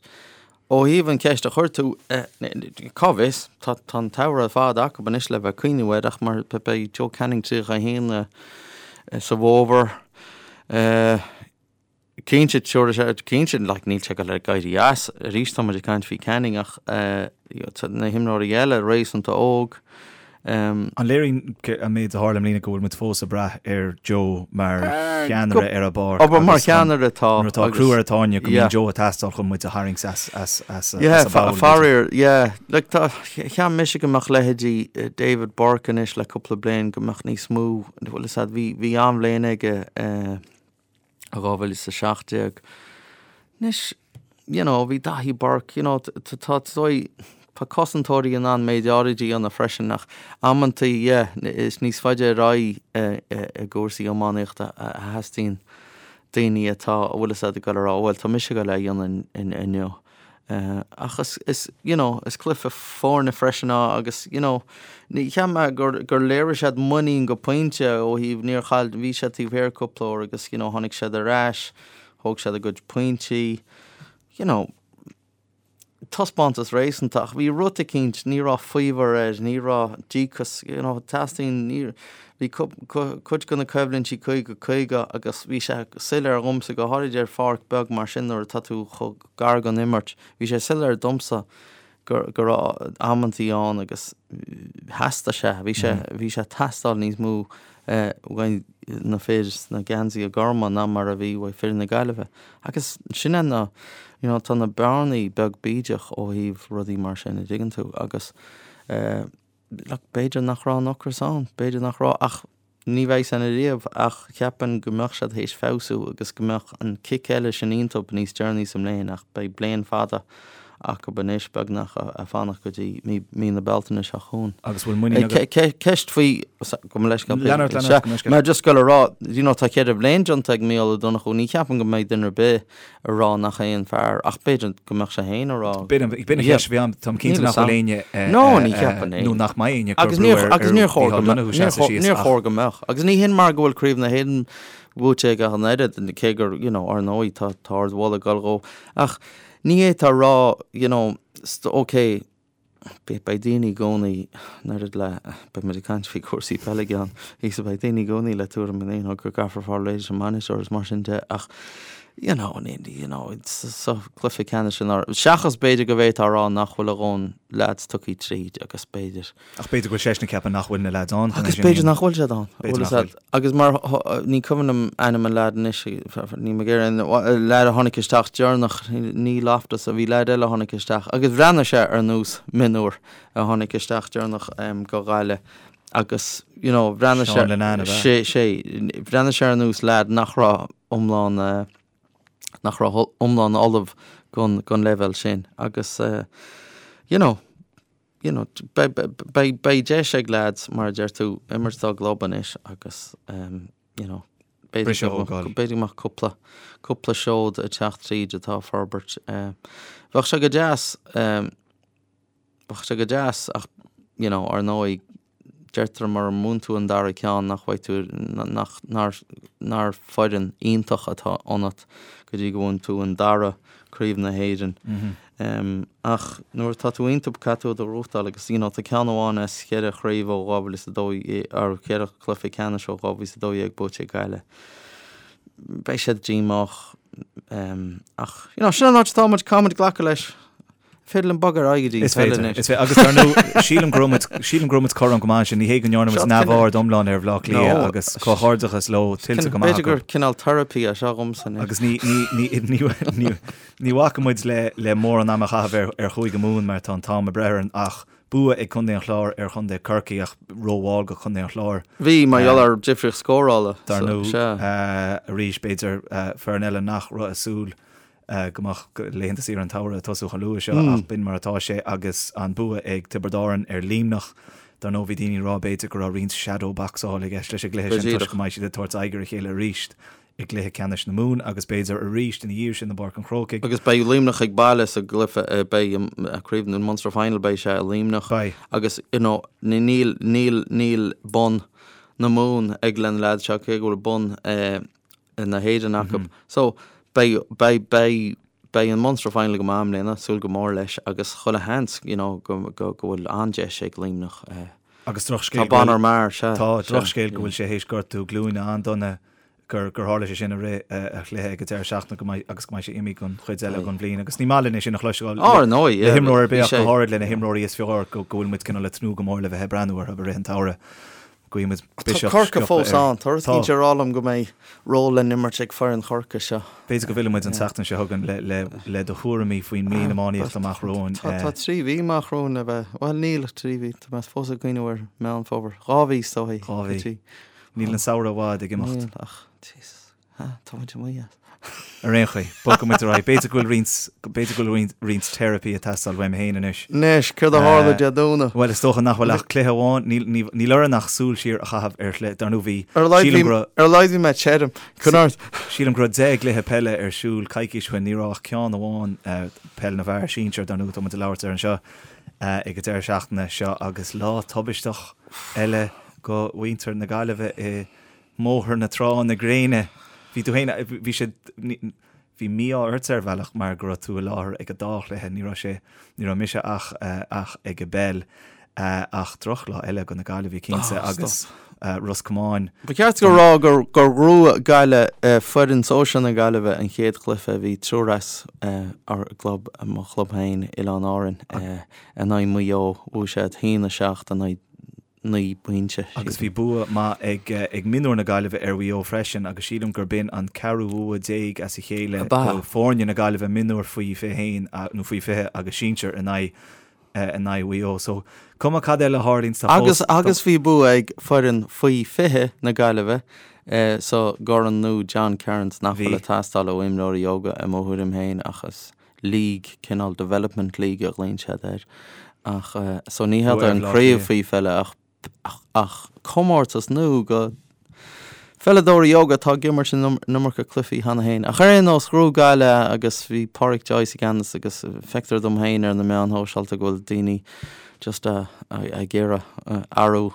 Ó thaobh an cheist a chuir tú, cá bhfios, tá an tsamhradh ar fad acu anois le bheith ag cuimhniú air ach mar beidh Joe Canning 31 sa bhfómhar. Cinnte, cinnte, like, níl sé ag dul ag éirí as. Arís tá muid ag caint faoi Canning ach na himreoirí eile réasúnta óg. An léiríonn an méid a tharla i mbliana go bhfuil muid fós ag brath ar Joe mar cheannaire ar an bpáirc? Abair mar cheannaire tá. Nuair atá crú ar an tairne go mbíonn Joe ag teastáil chun muid a tharraingt as an bpoll. Faraor, yeah. Like tá, cheap mise go mbeadh leithéidí David Burke anois le cúpla bliain go mbeadh níos mó, bhfuil fhios a'd, bhí, bhí an-bhliain aige 2017. Anois, you know, bhí Daithí Burke, you know, tá tá cosantóirí in ann méid áirid a dhéanamh freisin ach amantaí, yeah, is níos faide ar aghaidh i gcúrsaí iománaíochta a theastaíonn daoine atá, a bhfuil fhios a'd ag dul a rá, bhuel, tá mise ag dul é a dhéanamh inniu. Ach is, is, you know, is cluiche foirne freisin é agus, you know, ní, cheap mé gur, gur léirigh siad muinín go pointe ó thaobh, níor chaill, bhí siad taobh thiar cúpla uair agus, you know, tháinig siad ar ais, thóg siad a gcuid pointí, you know, taispeántas réasúnta ach bhí rud eicínt, ní raibh faobhar air, ní raibh díocas, you know, teastaíonn, ní, bhí cuid de na coimhlintí 50, 50 agus bhí sé soiléir dhomsa, go háirid ar pháirc beag mar sin nuair atá tú chomh gar don imirt. Bhí sé soiléir domsa go go raibh amantaí ann agus theastaigh sé, bhí sé, bhí sé ag teastáil níos mó uaidh na fir sna geansaithe gorma ná mar a bhí uaidh fir na Gaillimhe. Agus sin é na, you know, tá na bearnaí beag bídeach ó thaobh rudaí mar sin, a dtuigeann tú, agus look, b'fhéidir nach raibh an ocras ann, b'fhéidir nach raibh, ach ní bheidh san ariamh, ach cheapfainn go mbeadh siad théis feabhsú agus go mbeadh an cic eile sin iontub níos deireanaí sa mbliain, ach beidh bliain fada acu anois, beagnach, a fanacht go dtí mí, mí na Bealtaine seo chugainn. Agus bhfuil muinín agat? Ceist faoi, gabh mo leithscéal, Lean ort, lean ort, gabh mo leithscéal. Mé just ag dul a rá, you know, tá cheithre bhliain déanta ag Mícheál Ó Donnchú, ní cheapaim go mbeidh duine ar bith a rá nach é an fear, ach b'fhéidir go mbeadh sé féin a rá. B'in an cheist a bhí agam, táim cinnte nach bhfuil éinne nó nach mbeidh éinne ag cur brú ar Agus níor chóir go mbeadh, níor chóir go mbeadh. Agus ní hin mar go bhfuil Craobh na hÉireann buaite aige ach an oiread, cé gur, you know, ar ndóigh tá ardmholadh ag dul dhó. Ach ní fhéadfá a rá, you know, ok, Beidh daoine i gcónaí, an oiread le, beidh muid ag caint faoi chúrsaí peile i gceann píosa, beidh daoine i gcónaí le tuairim you know, go gcaithfear fáil réidh leis an mbainisteoir is mar sin de ach you know, you know, sa chluiche ceannais sin, seachas b'fhéidir go bhféadfá a rá nach bhfuil a dhóthain leaids tugtha tríd agus b'fhéidir. Ach b'fhéidir go bhfuil seisean ag ceapadh nach bhfuil na leaids ann chun é Agus sin a b'fhéidir dhéanamh. nach bhfuil siad ann. B'fhéidir nach bhfuil. Agus mar, ní cuimhin liom ainm an leaid anois, níl mé ag iarraidh, an leaid a tháinig isteach deireanach, ní Loftus, bhí leaid eile a tháinig isteach agus bhreathnaigh sé ar nós mionúr a tháinig isteach deireanach go Gaillimh agus, you know, bhreathnaigh sé, Seán Linnane, ab ea? sé, sé, bhreathnaigh sé ar nós leaid nach raibh iomlán. nach raibh iomlán ullamh don don leibhéal sin agus you know you know beidh beidh beidh deis ag leaids mar a deir tú imirt dá gclub anois agus you know b'fhéidir Briseadh a thógáil. b'fhéidir go mbeadh cúpla cúpla seod ag teacht tríd atá ag forbairt. Bheadh sé go deas Bheadh sé go deas ach you know ar ndóigh deirtear mura mbuann tú an dara ceann nach bhfaighidh tú nach nár nár foireann iontach atá ionat go dtí go mbuann tú an dara craobh na hÉireann. Um, ach nuair atá tú iontu caithfidh tú iad a ghnóthachtáil agus you know tá ceann amháin as cheithre chraobh ó 2012 ar cheithre chluiche ceannais ó 2012 buaite ag Gaillimh. Beidh siad díomách um, ach you know sin an áit atá muid caithfidh muid glacadh leis. Féidir linn bogadh ar aghaidh go dtí Is féidir, is féidir. Agus dar ndóigh, sílim go raibh muid, sílim go raibh muid cothrom go maith ansin. Ní hé go ndearna muid neamhaird iomlán ar Bhaile Átha Cliath agus comhghairdeachas leo tuillte go maith acu. B'fhéidir gur cineál therapy é seo dhomsa anois. Agus ní, ní, ní, ní, ní, ní bhacfaidh muid le, le mórán ama a chaitheamh ar, ar Chúige Mumhan mar tá an t-am ag breith orainn ach bua ag Contae an Chláir ar Chontae Chorcaí ach rómhall go Contae an Chláir. Bhí, mar gheall ar difríocht scórála. Dar ndóigh, arís b'fhéidir foireann eile nach raibh ag súil go mbeadh laethanta saoire an tsamhraidh ag tosú chomh luath seo ach b'in mar atá sé agus an bua ag Tiobraid Árann ar Luimneach. Dar ndóigh bhí daoine ag rá b'fhéidir go raibh roinnt shadow boxáil i gceist leis an gcluiche sin toisc go mbeidh siad ag tabhairt aghaidh ar a chéile arís i gcluiche ceannais na Mumhan agus b'fhéidir arís ina dhiaidh sin i bPáirc an Chrócaigh. Agus beidh Luimneach ag baile sa gcluiche, beidh craobh an Munster Final beidh sé i Luimneach. Beidh. Agus you know níl níl níl bonn na Mumhan ag na leaids seo cé go bhfuil bonn na hÉireann acu. So, beidh, beidh, beidh, beidh an Munster Final go maith i mbliana, súil go mór leis agus chuile sheans, you know, go, go, go bhfuil an-deis ag Luimneach. Eh, Agus drochscéal Tá Bonner mar, sea. Tá drochscéal go bhfuil sé théis gortú glúine an-dona gur gur tharla sé sin i rith a chluiche ag an deireadh seachtaine go mbeidh agus go mbeidh sé imithe don chuid eile den bhliain agus ní maith linn é sin a chloisteáil Ar ndóigh, le himreoir ar bith ach go háirid le na himreoirí is fearr go go bhfuil muid cineál ag tnúth go mór le bheith ag breathnú orthu i rith an tsamhraidh. Guímid Tá biseach Corcaigh sciobtha fós air. ann. Tá rud Tá. éicint ag rá liom go mbeidh ról le n-imirt ag foireann Chorcaí seo. B'fhéidir go bhfillfidh muid an tseachtain seo chugainn le, le, le do thuairimí faoin mbliain iománaíochta amach romhainn. Tá, tá 3 mhí amach romhainn le bheith, bhuel níl ach 3 mhí, tá mé fós ag cuimhneamh ar Meán Fómhair. 2 mhí is dóichí. 2 mhí. Níl an samhradh i bhfad ag imeacht. Níl ach, Jesus. Tá muid amuigh as. Ar aon chaoi, bogfaidh muid ar aghaidh. B'fhéidir go bhfuil roinnt, b'fhéidir go bhfuil roinnt teiripí ag teastáil uaim féin anois. Anois, céard a tharla Dé Domhnaigh? Bhuel, is dócha nach bhfuil ach cluiche amháin, níl, níl, níl orainn ach súil siar a chaitheamh ar chluiche, dar ndóigh bhí, Ar a laghad sílim bhí, go raibh, ar a laghad bhí mé tirim. Coinnigh ort. Sílim go raibh 10 gcluiche peile ar siúl coicís ó shin, ní raibh ach ceann amháin, peil na bhfear sinsir, dar ndóigh, tá muid ag labhairt air anseo ag an deireadh seachtaine seo agus lá tubaisteach eile go mhuintir na Gaillimhe i mBóthar na Trá na gréine. Bhí tú féin, bhí sé, bhí mí-ádh ort ar bhealach mar go raibh tú i láthair ag an dá chluiche, ní raibh sé, ní raibh mise ach, ach ag an bpeil. Ach drochlá eile go na Gaillimhigh cinnte agus Ros Comáin. Ba cheart go rá gur gur ghnóthaigh Gaillimh foireann sóisear na Gaillimhe an chéad chluiche a bhí triúr as ár gclub, mo chlub féin, Oileáin Árann, in aghaidh Mhaigh Eo. Bhuaigh siad 1-7 in aghaidh 9 bpointe. Agus bhí bua maith ag mionúir na Gaillimhe ar Mhaigh Eo freisin agus sílim gurb in an ceathrú bhua déag as a chéile do foirne na Gaillimhe, mionúir faoi 21 nó faoi 20 agus sinsir in aghaidh in aghaidh Mhaigh Eo. So cuma cad eile a tharlaíonn tá fós. Agus agus bhí bua ag foireann faoi 20 na Gaillimhe sa gCorn nua John Kerins nach bhfuil ag teastáil ó imreoirí óga i mo thuairim féin ach is league, cineál development league a ghlaonn siad air. Ach so ní hé an craobh faoi pheile ach ach comórtas nua go pheileadóirí óga atá ag imirt an iomarca cluichí cheana féin. Ach ar aon nós, ghnóthaigh Gaillimh agus bhí Pádraic Joyce i gceannas agus feictear dom féin ar na meáin shóisialta go bhfuil daoine just ag iarraidh athrú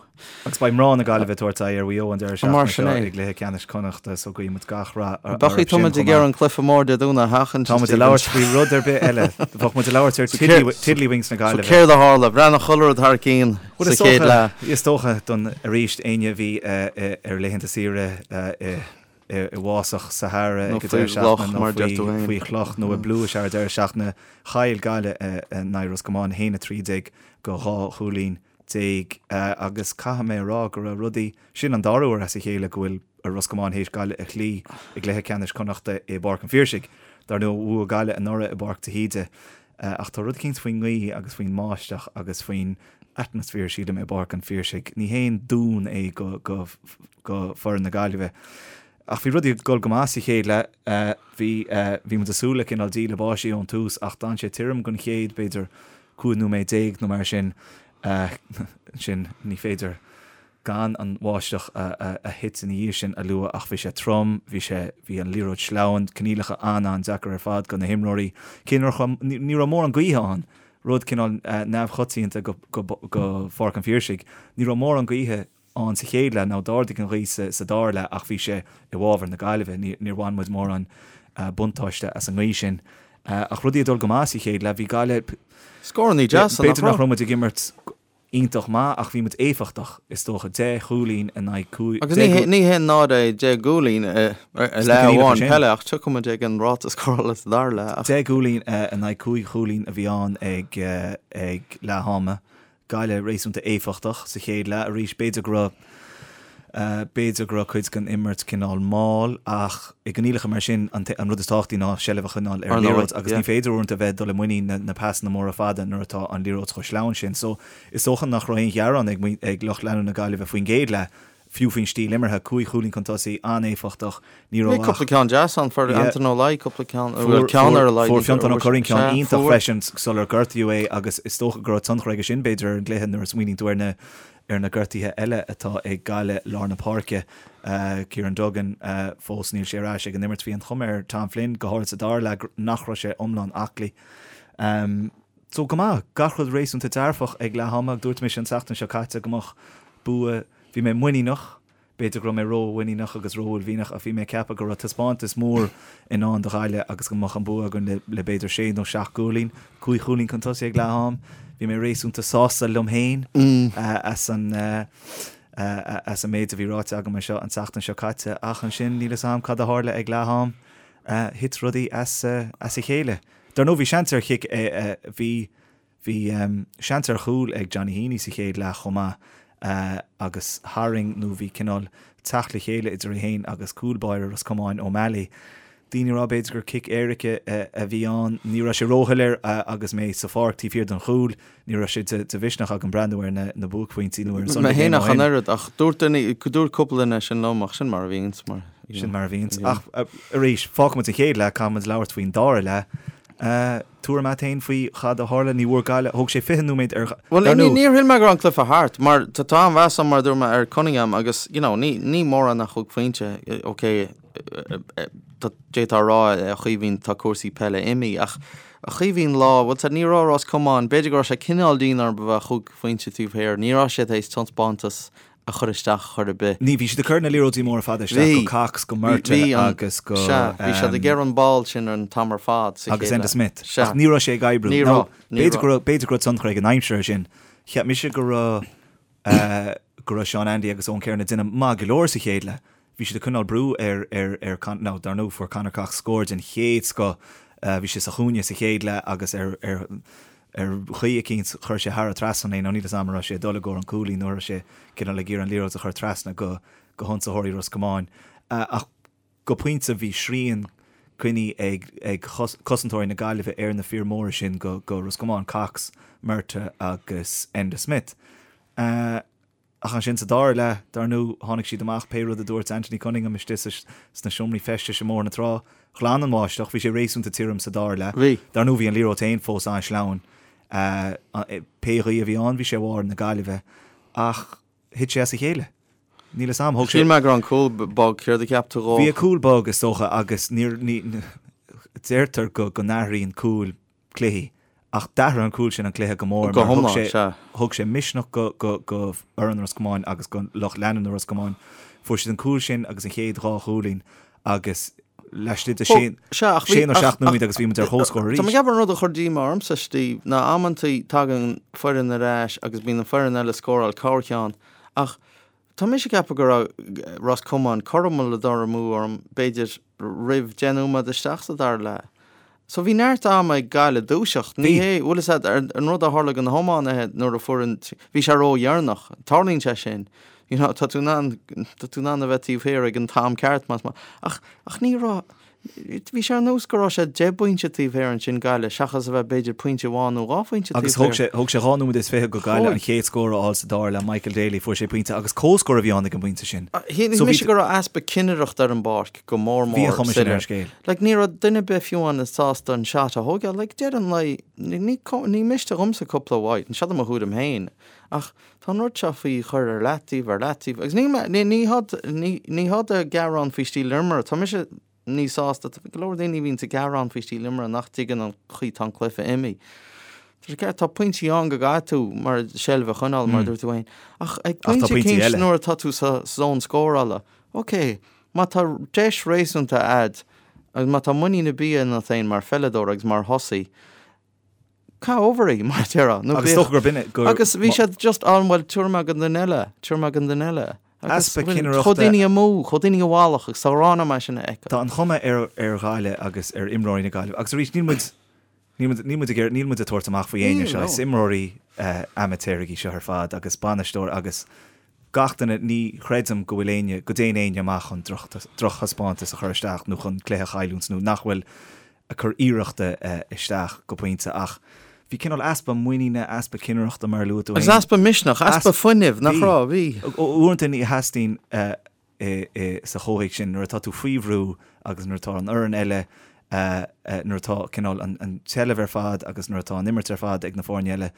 Agus beidh mná na Gaillimhe ag tabhairt aghaidh ar Mhaigh Eo an deireadh seachtaine seo i gcluiche ceannais Connachta so guíonn muid gach rath orthu sin chomh maith. Tá muid ag iarraidh an cluiche mór Dé Domhnaigh a sheachaint. Tá muid ag labhairt faoi rud ar bith eile. Bheadh muid ag labhairt ar Tiddlywinks na Gaillimhe. So céard a tharla? Bhreathnaigh chuile rud thar cionn sa chéad leath. Is dócha don arís éinne a bhí ar laethanta saoire i i bhfásach Sahara ag an deireadh seachtaine nó faoi chloch nó i bpluais ar an deireadh seachtaine, chaill Gaillimh in aghaidh Ros Comáin 1-13 go 2 chúilín. Agus caithfidh mé a rá go raibh rudaí, sin an dara huair as a chéile go bhfuil Ros Comáin théis Gaillimh a chloí i gcluiche ceannais Connachta i bPáirc an Phiarsaigh. Dar ndóigh, bhuaigh Gaillimh anuraidh i bPáirc de hÍde. Ach tá rud eicínt faoin ngaoth agus faoin mbáisteach agus faoin atmaisféar, sílim, i bPáirc an Phiarsaigh. Ní haon dún é go, go, go foireann na Gaillimhe. Ach bhí rudaí ag dul go maith sa chéad leath. Bhí, bhí muid ag súil le cineál díle báistí ón tús ach d'fhan sé tirim don chéad, b'fhéidir, 15 nóiméad nó mar sin. Ansin ní féidir gan an bháisteach a thit ina dhiaidh sin a lua ach bhí sé trom, bhí sé, bhí an liathróid sleamhain, coinníollacha an-an-deacair ar fad do na himreoirí. Cé nach raibh, ní raibh mórán gaoithe ann, rud cineál neamhchoitianta go, go, go Pháirc an Phiarsaigh, ní raibh mórán gaoithe ann sa chéad leath, now d'ardaigh an ghaoth sa dara leath ach bhí sé i bhfabhar na Gaillimhe, níor bhain muid mórán buntáiste as an ngaoth sin. Ach rudaí ag dul go maith sa chéad leath, bhí Gaillimh, Scórannaí deasa, nach raibh? B'fhéidir nach raibh muid ag imirt iontach maith ach bhí muid éifeachtach, is dócha, 10 chúilín in aghaidh 5, Agus ní haon náire é 10 gcúilín i leath amháin peile ach tiocfaidh muid ag an ráta scórála sa dara leath. 10 gcúilín in aghaidh 5 chúilín a bhí ann ag leath ama. Gaillimh réasúnta éifeachtach sa chéad leath arís. B'fhéidir go raibh, b'fhéidir go raibh cuid den imirt cineál mall ach i gcoinníollacha mar sin an an rud is tábhachtaí ná seilbh a choinneáil ar an liathróid agus ní féidir uaireanta a bheith ag dul i muinín na na pasanna móra fada nuair atá an liathróid chomh sleamhain sin. So is dócha nach raibh aon ghearán ag ag lucht leanúna na Gaillimhe faoin gcéad leath. Fiú faoin stíl imeartha, 5 chúilín chun tosaigh, an-éifeachtach, ní raibh ach. Bhí cúpla ceann deas ann, fuair Anton Ó Laoi cúpla ceann, bhuel ceann ar a laghad. Fuair Fionntán Ó Curraoin ceann iontach freisin sular gortaíodh é agus is dócha go raibh tionchar aige sin b'fhéidir ar an gcluiche nuair a smaoiníonn tú ar na ar na gortuithe eile atá ag Gaillimh lár na páirce. Kieran Duggan, fós níl sé ar ais ag an imirt. Bhí an chuma ar Tom Flynn, go háirid sa dara leath, nach raibh sé iomlán aclaí. So go maith, gach rud réasúnta dearfach ag leath ama. Dúirt mise an tseachtain seo caite go mbeadh bua, bhí mé muiníneach, b'fhéidir go raibh mé ró-mhuiníneach agus ró-uaillmhianach ach bhí mé ag ceapadh go raibh taispeántas mór i ndán do Ghaillimh agus go mbeadh an bua againn le le b'fhéidir sé nó seacht gcúilín, 5 chúilín chun tosaigh ag leath am. Bhí mé réasúnta sásta liom féin as an as an méid a bhí ráite agam anseo an tseachtain seo caite ach ansin níl 'fhios a'm cad a tharla ag leath am, thit rudaí as as a chéile. Dar ndóigh bhí seans ar chic, bhí bhí seans ar chúl ag Johnny Heaney sa chéad leath chomh maith agus tharraing nó bhí cineál teacht le chéile idir é féin agus cúl báire Ros Comáin, O'Malley. Daoine ag rá b'fhéidir gur cic éirice a bhí ann. Ní raibh sé róshoiléir agus mé sa pháirc taobh thiar den chúl. Ní raibh sé de mhisneach agam breathnú ar na buaicphointí nó ar an Sunday Game ó shin. Mé féin ach an oiread, ach dúirt duine, dúirt cúpla duine sin liom, ach sin mar a bhíonns, mar, you know. Sin mar a bhíonns. Ach arís, fágfaidh muid an chéad leath, caithfidh muid labhairt faoin dara leath. Tuairim a't fhéin faoi chad a tharla? Ní bhfuair Gaillimh, thóg sé 20 nóiméad ar, Bhuel, dar ndóigh. níor shíl mé go raibh an cluiche thart, mar tá tá an-mheas agam, mar a dúirt mé, ar Cunningham agus, you know, ní, ní mórán a thug pointe, ok, d'fhéadfá a rá, a Chaoimhín, tá cúrsaí peile imithe, ach a Chaoimhín lá, bhuel, ní raibh Ros Comáin, b'fhéidir go raibh sé cineál dian orthu a bheith chúig phointe taobh thiar, ní raibh siad théis taispeántas a chur isteach chor ar bith. Ní, bhí siad ag cur na liathróidí móra fada isteach go Cox, go Murtagh agus go. Sea, bhí siad ag iarraidh an ball sin an t-am ar fad sa chéad leath. Agus Enda Smith. Sea. Ach ní raibh sé ag oibriú. Ní raibh, ní raibh. B'fhéidir go raibh tionchar ag an aimsir air sin. Cheap mise go raibh, go raibh Seán Andy agus Eoin Kerrin ag déanamh maith go leor sa chéad leath. Bhí siad ag coinneáil brú ar, ar, ar Con, now dar ndóigh fuair Conor Cox scór den chéad scoth. Bhí sé sa chúinne sa chéad leath agus ar, ar, ar chaoi eicínt chuir sé thar an trasnán é, now níl 'fhios a'm an raibh sé ag dul i gcomhair an cúilín nó an raibh sé cineál ag iarraidh an liathróid a chur trasna go, go hionsaitheoirí Ros Comáin. Ach go pointe bhí srian coinnithe ag, ag cosantóirí na Gaillimhe ar na fir móra sin go, go Ros Comáin, Cox, Murtagh agus Enda Smith. Ach ansin sa dara leath, dar ndóigh, tháinig siad amach, pé rud a dúirt Anthony Cunningham istigh sna seomraí feistis i mBóthar na Trá. Ghlan an bháisteach, bhí sé réasúnta tirim sa dara leath. Bhí. Dar ndóigh, bhí an liathróid féin fós an-sleamhain. Pé ghaoth a bhí ann, bhí sé i bhfabhar na Gaillimhe. Ach thit sé as a chéile. Níl 'fhios a'm, thóg sé. Shíl mé go raibh an cúl bog, céard a cheap tú dhó? Bhí an cúl bog, is dócha, agus níor, ní, deirtear go n-athraíonn cúil cluichí. Ach d'athraigh an cúl sin an cluiche go mór mar thug sé, thug sé misneach go, go, go fhoireann Ros Comáin agus go lucht leanúna Ros Comáin. Fuair siad an cúl sin agus an chéad dhá chúilín agus laistigh de sé, sé nó seacht nóiméad agus bhí muid ar comhscór arís. Tá mé ag ceapadh an rud a chuir díomá ormsa, Steve, ná amantaí tagann foireann ar ais agus bíonn an foireann eile ag scóráil corrcheann ach tá mise ag ceapadh go raibh Ros Comáin cothrom le dul amú orm, b'fhéidir roimh 10 nóiméad isteach sa dara leath. So bhí neart ama ag Gaillimh dúiseacht. Ní hé, bhfuil fhios a'd, an rud a tharla do na hiománaithe nuair a fuair an, bhí sé ródheireanach. Tarlaíonn sé sin. You know, tá tú in ann, tá tú in ann a bheith taobh thiar ag an t-am ceart más maith. Ach, ach ní raibh, Bhí sé ar nós go raibh sé 10 bpointe taobh thiar ansin Gaillimh seachas a bheith b'fhéidir pointe amháin nó dhá phointe taobh Agus thóg sé, thóg sé 2 nóiméad is 20 go Gaillimh an chéad scór a fháil sa dara leath, Michael Daly, fuair sé pointe agus comhscór a bhí ann ag an bpointe sin. Shíl So bhí mise go raibh easpa cinnireachta ar an bpáirc go mór Bhí an mór chuma sin ar an scéal. Like ní raibh duine ar bith fiú amháin sásta an shot a thógáil. Like deireadh an lae, ní, ní miste dhomsa cúpla wide, seo do mo thuairim féin, ach Tá an rud seo faoi chur ar leataobh, ar leataobh, agus ní, ní, ní hod, ní, ní hod a gearán faoi stíl imeartha. Tá mise níos sásta, tá go leor daoine a bhíonns ag gearán faoi stíl imeartha nach dtuigeann an chaoi tá an cluiche imithe. Tá sé ceart, tá pointí ann go gcaithfidh tú mar seilbh a choinneáil, mar a dúirt tú féin. Ach ag Ach tá pointe pointí eicínt eile. nuair atá tú sa zón scórála, ok, má tá deis réasúnta a'd, agus má tá muinín ar bith ionat féin mar pheileadóir agus mar thosaí, Caith over í, mar a déarfá. Nó Agus dócha gurb in gur. Agus bhí siad just ann, bhuel, tabharfaidh mé don duine eile, tabharfaidh mé don duine eile. Agus Easpa cinnireachta. Chuaigh daoine amú, chuaigh daoine i bhfalach agus tá ghrá orm é sin a fheiceáil. Tá an chuma ar ar Ghaillimh agus ar imreoirí na Gaillimhe, agus arís níl muid, níl muid, níl muid ag iarraidh, níl muid ag tabhairt amach faoi éinne seo, is imreoirí amaitéaraigh í seo ar fad agus bainisteoir agus gach duine, ní chreidim go bhfuil éinne, go dtéann éinne amach chun drochthaispeántas a chur isteach nó chun cluiche a chailliúint nó nach bhfuil ag cur iarrachta isteach go pointe ach bhí cineál easpa muiníne, easpa cinnireachta mar a luaigh tú féin. Agus easpa misneach, easpa fuinnimh, nach raibh? Bhí. Uaireanta ní theastaíonn sa chomhthéacs sin nuair atá tú faoi bhrú agus nuair atá an fhoireann eile, nuair atá cineál an tseilbh ar fad agus nuair atá an imirt ar fad ag na foirne eile,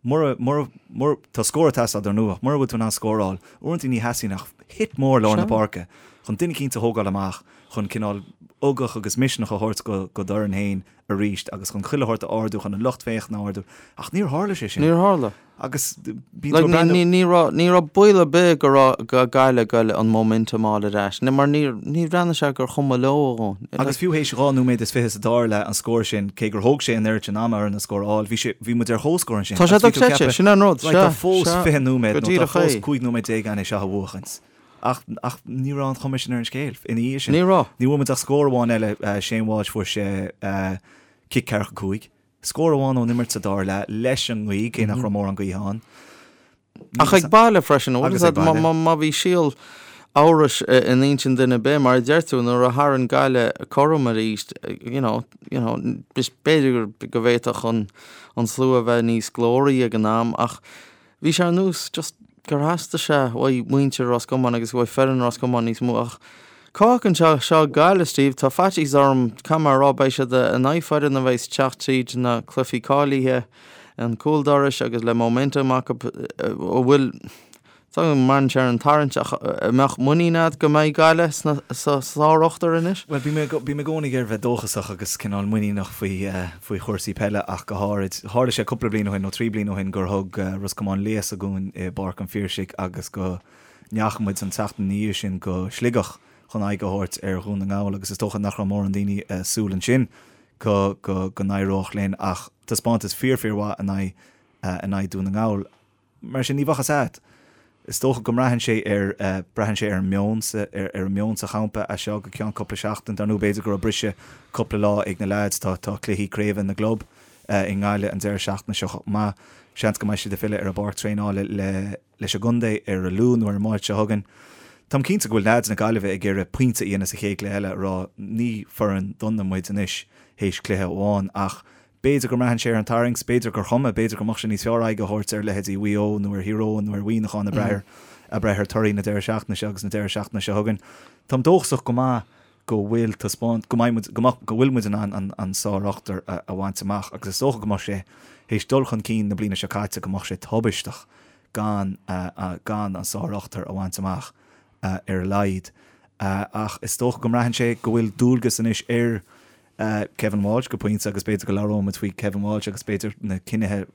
Mura, mura, mura, tá scór ag teastáil dar ndóigh, ach mura bhfuil tú in ann scóráil, uaireanta ní theastaíonn ach hit mór lár na páirce chun duine eicínt a thógáil amach, chun cineál ugach agus misneach a thabhairt go, go d'fhoireann féin arís agus chun chuile shórt a ardú, chun an lucht féachana a ardú. Ach níor tharla sé sin. Níor tharla. Agus bíonn tú ag breathnú. Ní, ní raibh, ní raibh baol ar bith go raibh, go Gaillimh ag goil an momentum a fháil ar ais, mar níor, ní bhreathnaigh sé gur chuma leo a dhóthain. Agus fiú théis 2 nóiméad is 20 sa dara leath an scór sin, cé gur thóg sé an oiread sin ama orainn an scór a fháil, bhí sé, bhí muid ar comhscór ansin. Tá sé Agus bhí tú ag dochreidte, ceapadh, sin an rud, right, tá sea, fós sea, 20 nóiméad go nó tá díreach fós é. 15 nóiméad againn é seo a bhuachaint. Ach, ach ní raibh an chuma sin ar an scéal ina dhiaidh sin. Ní raibh. Ní bhfuair muid ach scór amháin eile, Shane Walsh, fuair sé cic ceathracha 5. Scór amháin ón imirt sa dara leath leis an ngaoth, cé nach raibh mórán gaoithe ann. Ach ag baile freisin, bhfuil a fhios agat, má bhí síol amhrais in intinn duine ar bith, mar a deir tú, nuair a tharraing Gaillimh cothrom arís, you know, you know, b'fhéidir go bhféadfadh an, an slua a bheith níos glóraí ag an am ach bhí sé ar nós just gur theastaigh sé uaidh muintir Ros Comáin agus uaidh foireann Ros Comáin níos mó ach cá fhágann sé seo Gaillimh, Steve? Tá faitíos orm, caithfidh mé a rá, beidh siad in aghaidh foireann a bheidh ag teacht tríd na cluichí cáilithe. an cúl dorais agus le momentum acu a bhfuil tá go mbraitheann sé ar an tarraingt ach an mbeadh muinín agat go mbeidh Gaillimh sna sa sár-ochtar anois? Bhuel, bím i bím i gcónaí ag iarraidh bheith dóchasach agus cineál muiníneach faoi faoi chúrsaí peile ach go háirid. Tharla sé cúpla bliain ó shin nó 3 bliana ó shin gur thug Ros Comáin léasadh dhúinn i bPáirc an Phiarsaigh agus go ndeachaigh muid an tseachtain ina dhiaidh sin go Sligeach chun aghaidh a thabhairt ar Dhún na nGall agus is dócha nach raibh mórán daoine ag súil ansin go go go n-éireodh linn ach taispeántas fíor fíor mhaith in aghaidh in aghaidh Dún na nGall. Mar sin ní bheadh fhios agat. Is dócha go mbraitheann sé ar braitheann sé ar an meon sa ar ar an meon sa champa as seo go ceann cúpla seachtain. Dar ndóigh b'fhéidir go raibh briseadh cúpla lá ag na leaids. Tá tá cluichí craoibhe na gclub i nGaillimh an deireadh seachtaine seo chomh maith. Seans go mbeidh siad ag filleadh ar an bpáirc traenála le leis an gcontae ar an Luan nó ar an Máirt seo chugainn. Táim cinnte go bhfuil leaids na Gaillimhe ag iarraidh pointe a dhéanamh sa chéad chluiche eile, a rá ní foireann dona muid anois théis cluiche amháin ach b'fhéidir go mbraitheann sé ar an tarraingt, b'fhéidir gur chuma, b'fhéidir go mbeadh sé níos fearr aghaidh a thabhairt ar leithéidí Mhaigh Eo nó ar Thír Eoghain nó ar Mhuineachán ag brath ar ag brath ar torthaí na deireadh seachtaine seo agus na deireadh seachtaine seo chugainn. Táim dóchasach go maith go bhfuil taispeáint, go mbeidh muid, go mbeadh, go bhfuil muid in ann an, an sár-ochtar a, a bhaint amach agus is dócha go mbeadh sé, théis dul chun cinn na bliana seo caite, go mbeadh sé tubaisteach gan, gan an sár-ochtar a bhaint amach ar a laghad. Ach is dócha go mbraitheann sé go bhfuil dualgas anois ar Kevin Walsh go pointe agus b'fhéidir go labhróidh muid faoi Kevin Walsh agus b'fhéidir na cinnithe,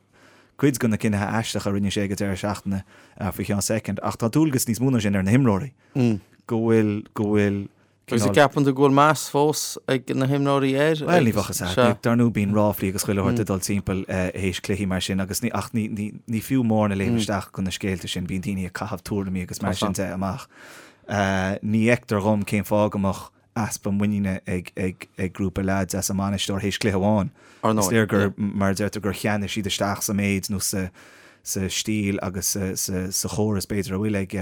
cuid de na cinnithe aisteacha a rinne sé ag an deireadh seachtaine faoi cheann soicind. Ach tá dualgas níos mó ná sin ar na himreoirí. go bhfuil, go bhfuil Agus an gceapann tú go bhfuil meas fós ag na himreoirí air? Bhuel, ní bheadh fhios agat. Dar ndóigh bíonn ráflaí agus chuile shórt ag dul timpeall théis cluichí mar sin agus ní, ach ní, ní, ní fiú mórán a léim isteach go na scéalta sin, bíonn daoine ag caitheamh tuairimí agus mar sin de amach. Ní fheictear dhom cén fáth go mbeadh easpa muiníne ag, ag, ag grúpa leaids as a mbainisteoir théis cluiche amháin. Is léir gur, mar a deirtear, gur cheannaigh siad isteach sa méid nó sa, sa stíl agus sa, sa, sa chóras b'fhéidir a bhfuil ag.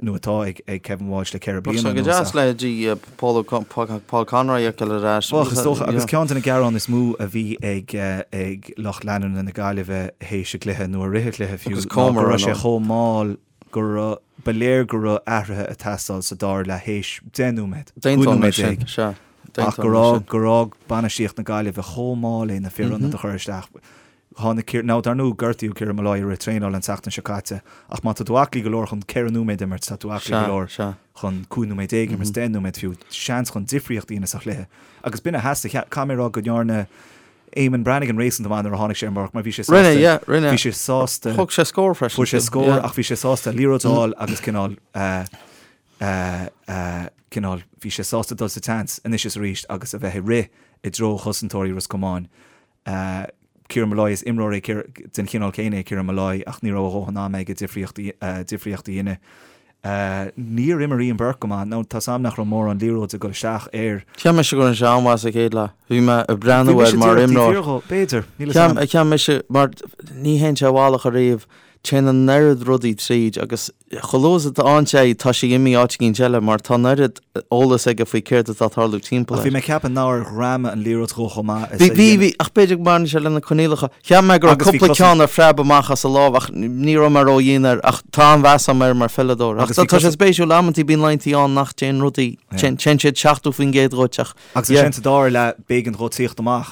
nó atá ag ag Kevin Walsh le 4 bliana anuas. Go deas leithéidí Paul Paul Conroy a fheiceáil ar ais. Bheadh, is dócha, agus ceann de na gearáin is mó a bhí ag ag lucht leanúna na Gaillimhe théis an chluiche, nó i rith an chluiche fiú, ná go raibh sé chomh mall go raibh, ba léir go raibh athruithe ag teastáil sa dara leath théis 10 nóiméad, 15 nóiméad, ach gur fhág, gur fhág bainistíocht na Gaillimhe chomh mall é na fir ionaid a chur isteach. Tháinig Ciar, now dar ndóigh gortaíodh Ciarán Molloy i rith traenála an tseachtain seo caite ach má tá tú aclaí go leor chun 14 nóiméad a imirt, tá tú aclaí go leor chun 15 nóiméad a imirt, 10 nóiméad fiú, seans chun difríocht a dhéanamh sa chluiche. Agus b'in a theastaigh, caithfidh mé a rá go ndearna Eamonn Brannigan réasúnta maith nuair a tháinig sé ar an bpáirc mar bhí sé sásta, Rinne, yeah, rinne. bhí sé sásta, Thóg sé scór freisin. fuair sé scór ach bhí sé sásta liathróid a fháil agus cineál, cineál, bhí sé sásta dul sa tseans anois is arís agus a bheith ag rith i dtreo chosantóirí Ros Comáin. Ciarán Molloy, is imreoir é den chineál céanna é Ciarán Molloy ach ní raibh a dhóthain ama aige difríocht a dhéanamh. Níor imir Ian Burke go maith. Now, tá's a'm nach raibh mórán liathróide ag dul isteach air. Cheap mise go rinne sé an-mhaith sa chéad leath. Bhí mé ag breathnú air mar imreoir. B'fhéidir, níl 'fhios a'm. Cheap mise, mar ní théann sé i bhfalach ariamh. Téann an oiread rudaí tríd agus chomh luath is atá ann sé, tá sé imithe áit éicint eile mar tá an oiread eolas aige faoi céard atá ag tarlú timpeall Ach bhí air. mé ag ceapadh nár ghreamaigh an liathróid dhó chomh maith is a Bhí, bhí, bhí, ach b'fhéidir go mbaineann sé le na coinníollacha. Cheap mé go raibh Agus bhí cúpla cosaint- ceann a phreab amach as a lámh ach ní raibh mé ródhian air ach tá an-mheas agam air mar pheileadóir. Ach Agus bhí tá sé cosaint- spéisiúil, amantaí bíonn laethanta ann nach dtéann rudaí, téann, téann siad 70% dhuit ach Agus ansin sa dara leath, b'éigean dhó tíocht amach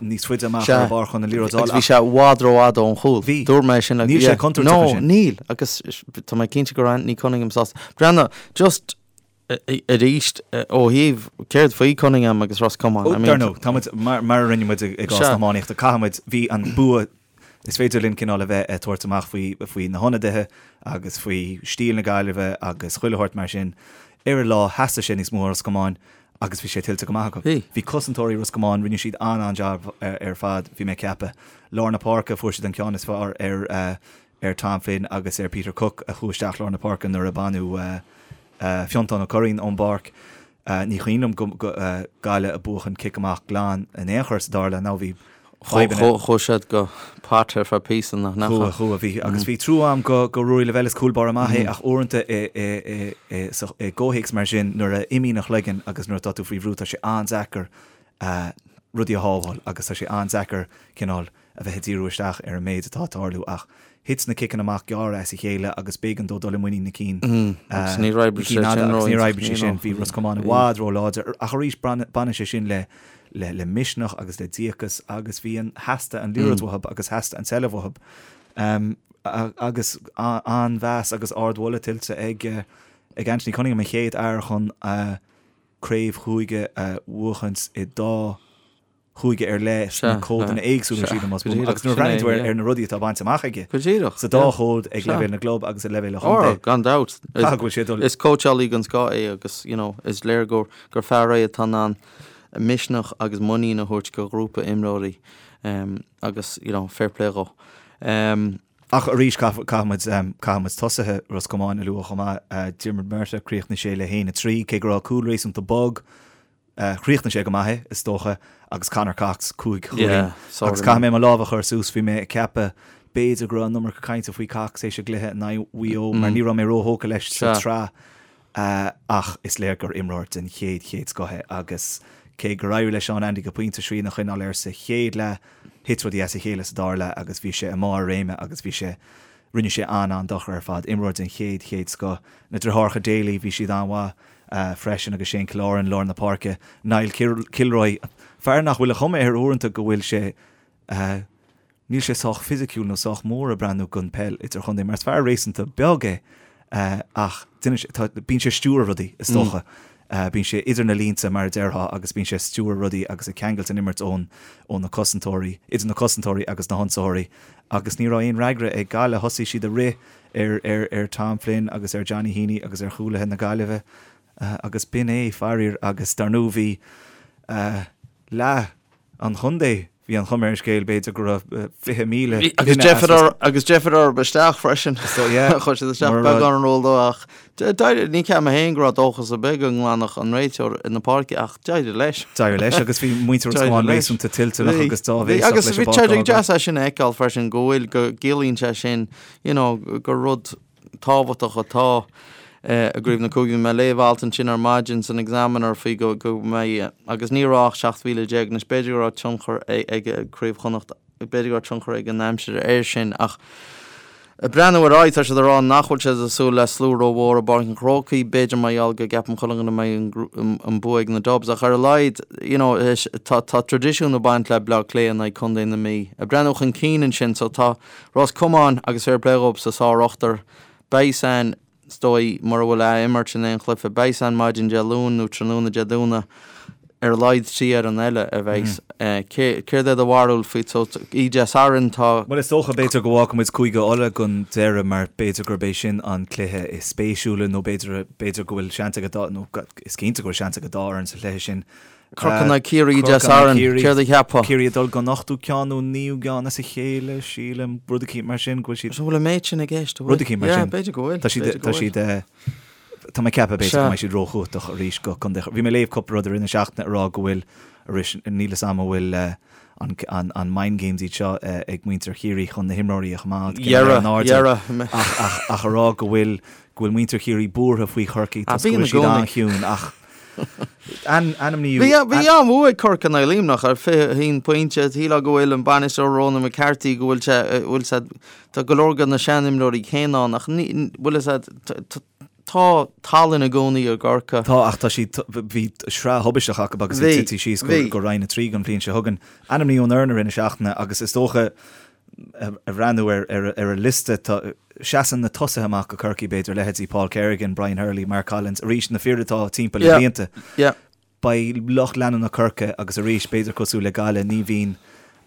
níos faide amach ar an bpáirc chun an liathróid a fháil. Agus bhí sé i bhfad rófhada ón chúl. Bhí. Dúirt mé sin. Níl sé contúirteach ansin. No, níl. Agus tá mé cinnte go raibh Anthony Cunningham sásta. Breathnaigh, just arís ó thaobh céard faoi Cunningham agus Ros Comáin. Ó, dar ndóigh, tá muid, mar a rinne muid i gcás na hiománaíochta, caithfidh muid, bhí an bua Is féidir linn cineál a bheith ag tabhairt amach faoi, faoi na hionadaithe agus faoi stíl na Gaillimhe agus chuile shórt mar sin. Ar an lá, theastaigh sé níos mó ó Ros Comáin agus bhí sé tuillte go maith acu. Bhí. Bhí cosantóirí Ros Comáin, rinne siad an-an-jab ar fad, bhí mé ag ceapadh. Lár na páirce, fuair siad an ceann is fearr ar, ar Tom Flynn agus ar Peter Cooke a chuaigh isteach lár na páirce nuair a baineadh Fiontán Ó Curraoin ón bpáirc. Ní cuimhin liom go Gaillimh ag buachan cic amach glan in aon chor sa dara leath. Now bhí fadhbanna. Chuaigh siad go pot ar feadh píosa nach ndeachaigh? Chuaigh, chuaigh, bhí. Agus bhí trua a'm go go Ruairí Lavelle is cúl báire maith é ach uaireanta i i i i gcomhthéacs mar sin nuair a imíonn an chloigeann agus nuair atá tú faoi bhrú tá sé an-deacair rudaí a shábháil agus tá sé an-deacair cineál a bheith ag díriú isteach ar an méid atá ag tarlú ach thit na ciceanna amach gearra as a chéile agus b'éigean dó dul i muinín na cinn Agus níor oibrigh sé sin agus níor oibrigh sé sin. Bhí Ros Comáin i bhfad ró-láidir ach arís baineann sé sin le le le misneach agus le díocas agus bhí an theastaigh an liathróid uathu agus theastaigh an tseilbh uathu agus an-mheas agus ardmholadh tuillte ag ag Anthony Cunningham an chéad fhear chun craobh chúige a bhuachaint i dá chúige ar leith sna códanna éagsúla, sílim, más buan. Agus nuair a bhreathnaíonn tú ar na rudaí atá bainte amach aige sa dá chód ag leibhéal na gclub agus ag leibhéal an chontae, Gan dabht. Caithfidh go bhfuil sé ag dul. Is cóitseálaí den scoth é agus, you know, is léir gur gur fear é atá in ann misneach agus muinín a thabhairt do ghrúpa imreoirí agus, you know, fair play dhó. Ach arís, caithfidh muid, caithfidh muid tosaithe Ros Comáin a lua chomh maith. Diarmuid Murtagh, chríochnaigh sé le 1-3, cé go raibh cúl réasúnta bog. Chríochnaigh sé go maith é, is dócha, agus Conor Cox, 5 chúilín. Agus caithfidh mé mo lámh a chur suas, bhí mé ag ceapadh b'fhéidir go raibh an iomarca cainte faoi Cox théis an gcluiche in aghaidh Mhaigh Eo, mar ní raibh mé róthógtha leis sa tsraith, ach is léir gur imreoir den chéad, chéad scoth é agus cé gur éirigh le Seán Andy go pointe srian a choinneáil air sa chéad leath, thit rudaí as a chéile sa dara leath agus bhí sé i mbarr a réime agus bhí sé, rinne sé an-an-dochar ar fad. Imreoir den chéad, chéad scoth. Na deartháireacha Daly, bhí siad an-mhaith freisin agus Shane Killoran, lár na páirce. Niall Kilroy, fear nach bhfuil an chuma air uaireanta go bhfuil sé, níl sé sách fisiciúil nó sách mór ag breathnú don peil idirchontae mar is fear réasúnta beag é ach bíonn sé ag stiúradh rudaí is dócha. Bíonn sé idir na línte mar a déarfá agus bíonn sé ag stiúradh rudaí agus ag ceangailt an imirt ón ó na cosantóirí, idir na cosantóirí agus na hionsaitheoirí agus ní raibh aon fhreagra ag Gaillimh. Thosaigh siad ag rith ar ar ar Tom Flynn agus ar Johnny Heaney agus ar chúlaithe na Gaillimhe agus b'in é, faraor, agus dar ndóigh bhí leath an chontae, bhí an chuma ar an scéal, b'fhéidir go raibh 20,000 Agus duine as deifir agus deifir orthu isteach freisin. So, yeah. Chuir siad isteach Mura raibh- beagán an ról dó ach d'éirigh, ní cheap mé féin go raibh dóchas ar bith go nglanfadh an réiteoir na páirce ach d'éirigh leis. D'éirigh leis agus bhí muintir Ros Comáin leis. réasúnta toilteanach agus Bhí, áibhéiseach agus leis an bhí bpáirc sé a fhágáil. deas é sin a fheiceáil freisin go bhfuil, go gciallaíonn sé sin, you know, gur rud tábhachtach atá. I gCraobh na Cúige, bhí mé ag léamh alt ansin ar maidin san Examiner faoi go go mbeidh, agus ní raibh ach 17,000 anois, b'fhéidir go raibh tionchar ag Craobh Chonnacht, b'fhéidir go raibh tionchar ag an aimsir air sin ach ag breathnú ar aghaidh tá siad ag rá nach bhfuil siad ag súil le slua rómhór i bPáirc an Chrócaigh, b'fhéidir mar gheall go gceapann chuile dhuine go mbeidh an bua ag na Dubs ach ar a laghad you know tá tá traidisiún ag baint le Bleá Cliath in aghaidh Contae na Mí. Ag breathnú chun cinn ansin so tá Ros Comáin agus fair play dhóibh sa sár-ochtar, beidh san Is dóigh, mura bhfuil ath-imirt in aon chluiche, beidh san maidin Dé Luain nó tráthnóna Dé Domhnaigh, ar a laghad 3 fhoireann eile a bheidh. Céard é do bharúil faoi so oíche Dé Sathairn tá. Bhuel is dócha, b'fhéidir go bhfágfaidh muid Cúige Uladh don deireadh mar b'fhéidir gurb é sin an cluiche is spéisiúla nó b'fhéidir, b'fhéidir go bhfuil seans ag an dá, nó is cinnte go bhfuil seans ag an dá fhoireann sa chluiche sin. Corcaigh in aghaidh Ciarraí Dé Sathairn, céard a cheapfá? Ciarraí ag dul don ochtú ceann nó naoú gceann as a chéile, sílim, rud eicínt mar sin, go bhfuil siad. An bhfuil an méid sin i gceist, an bhfuil? Rud eicínt mar sin. Yeah, b'fhéidir go bhfuil. Tá siad, tá siad, tá mé ag ceapadh b'fhéidir go mbeidh siad róchumhachtach arís go contae. Bhí mé ag léamh cúpla rud i rith na seachtaine ag rá go bhfuil, arís, níl fhios a'm an bhfuil an, an, an mind games iad seo ag muintir Chiarraí chun na himreoirí a choimeád cineál ar an airdeall ach, ach, ach a rá go bhfuil, go bhfuil muintir Chiarraí buartha faoi Chorcaigh toisc go bhfuil siad an-chiúin ach Ainmníodh. Bhí an-bhua ag Corcaigh in aghaidh Luimneach ar 21 pointe. Shílfeá go bhfuil an bainisteoir Ronan McCarthy go bhfuil sé, bhfuil sé, tá go leor de na seanimreoirí céanna ann ach ní, bhfuil fhios a'd, tá tallann i gcónaí i gCorcaigh. Tá ach tá siad, bhí sraith thubaisteach acu agus iad tite síos go Roinn 3 don bhliain seo chugainn. Ainmníodh an fhoireann i rith na seachtaine agus is dócha, a bhreathnú ar an liosta, tá, seasann na tosaithe amach do Chorcaigh, b'fhéidir, leithéidí Paul Kerrigan, Brian Hurley, Mark Collins, arís na fir atá timpeall le blianta. Beidh lucht leanúna Chorcaí agus arís, b'fhéidir cosúil le Gaillimh, ní bhíonn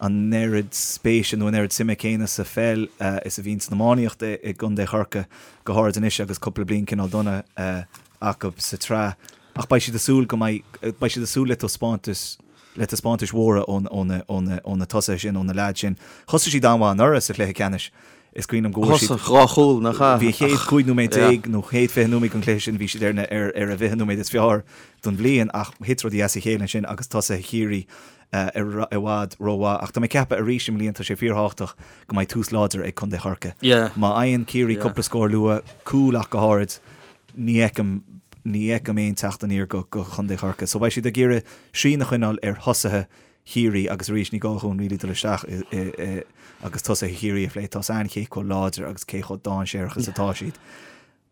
an oiread spéise nó an oiread suime céanna sa pheil is a bhíonn san iománaíocht i gcontae Chorcaí, go háirid anois agus cúpla bliain cineál dona acu sa tsraith. Ach beidh siad ag súil go mbeidh, beidh siad ag súil le taispeántas, le taispeántais mhóra ó na, ó na, ó na tosaithe sin, ó na leaids sin. Thosaigh siad an-mhaith anuraidh sa chluiche ceannais. Is cuimhin liom go bhfuair siad. Thosaigh 2 chúl, nach ea? Bhí an chéad 15 nóiméad nó chéad 20 nóiméad den chluiche sin, bhí siad ar na, ar, ar a bhfiche nóiméad is fearr don bhliain ach thit rudaí as a chéile ansin agus tosaithe Chiarraí i bhfad rómhaith. Ach tá mé ag ceapadh arís i mbliana tá sé fíorthábhachtach go mbeidh tús láidir ag Contae Chorcaí. Má fhaigheann Ciarraí cúpla scór luath, cúl ach go háirid, Ní fheicim, ní fheicim aon teacht aniar go, go Chontae Chorcaí. So beidh siad ag iarraidh srian a choinneáil ar thosaithe Chiarraí agus arís ní gá dhúinn really dul isteach i, i, i agus tosaithe Chiarraí a phlé. Tá's a'inn cé chomh láidir agus cé chomh dainséarach is atá siad.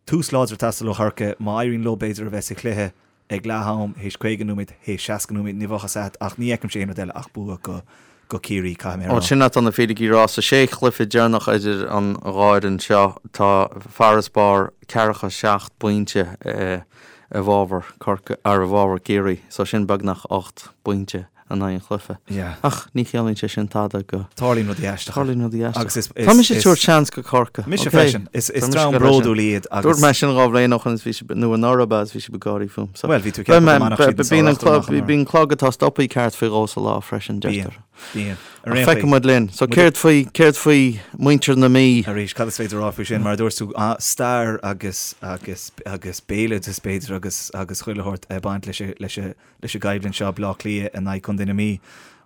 Tús láidir ag teastáil ó Chorcaigh. Má éiríonn leo b'fhéidir a bheith sa chluiche ag leath am, théis 50 nóiméad, théis 60 nóiméad, ní bheadh fhios a'd ach ní fheicimse aon rud eile ach bua go, go Ciarraí, caithfidh mé a rá. Sin atá na fíricí a rá. Sa sé chluiche deireanach idir an dhá fhoireann seo, tá farasbarr ceathracha seacht bpointe i bhfabhar Corcaigh, ar i bhfabhar Ciarraí, so sin beagnach 8 bpointe in aghaidh an chluiche. Ach ní chiallaíonn sé sin tada go. Tarlaíonn rudaí aisteacha. Tarlaíonn rudaí aisteacha. Agus is. Tá mise ag tabhairt seans go Corcaigh. Mise freisin. Is dream bródúil iad agus. Dúirt mé sin 2 bhliain ó shin is bhí sibh, nó anuraidh ab ea, is bhí sibh ag gáirí fúm. So, Bhuel, bhí tú ag ceapadh go mbainfeadh siad an sár-ochtar amach anuraidh. Bíonn clog atá stoptha ceart faoi dhó sa lá freisin, deirtear. Bíonn, bíonn. Ar aon chaoi. Feicfidh muid linn. So céard faoi, céard faoi muintir na Mí? Arís, cad is féidir a rá faoi sin? Mar a dúirt tú, stair agus, agus, agus béaloideas b'fhéidir agus, agus chuile shórt ag baint leis, leis, leis an gcoimhlint seo, Bleá Cliath in aghaidh Contae na Mí.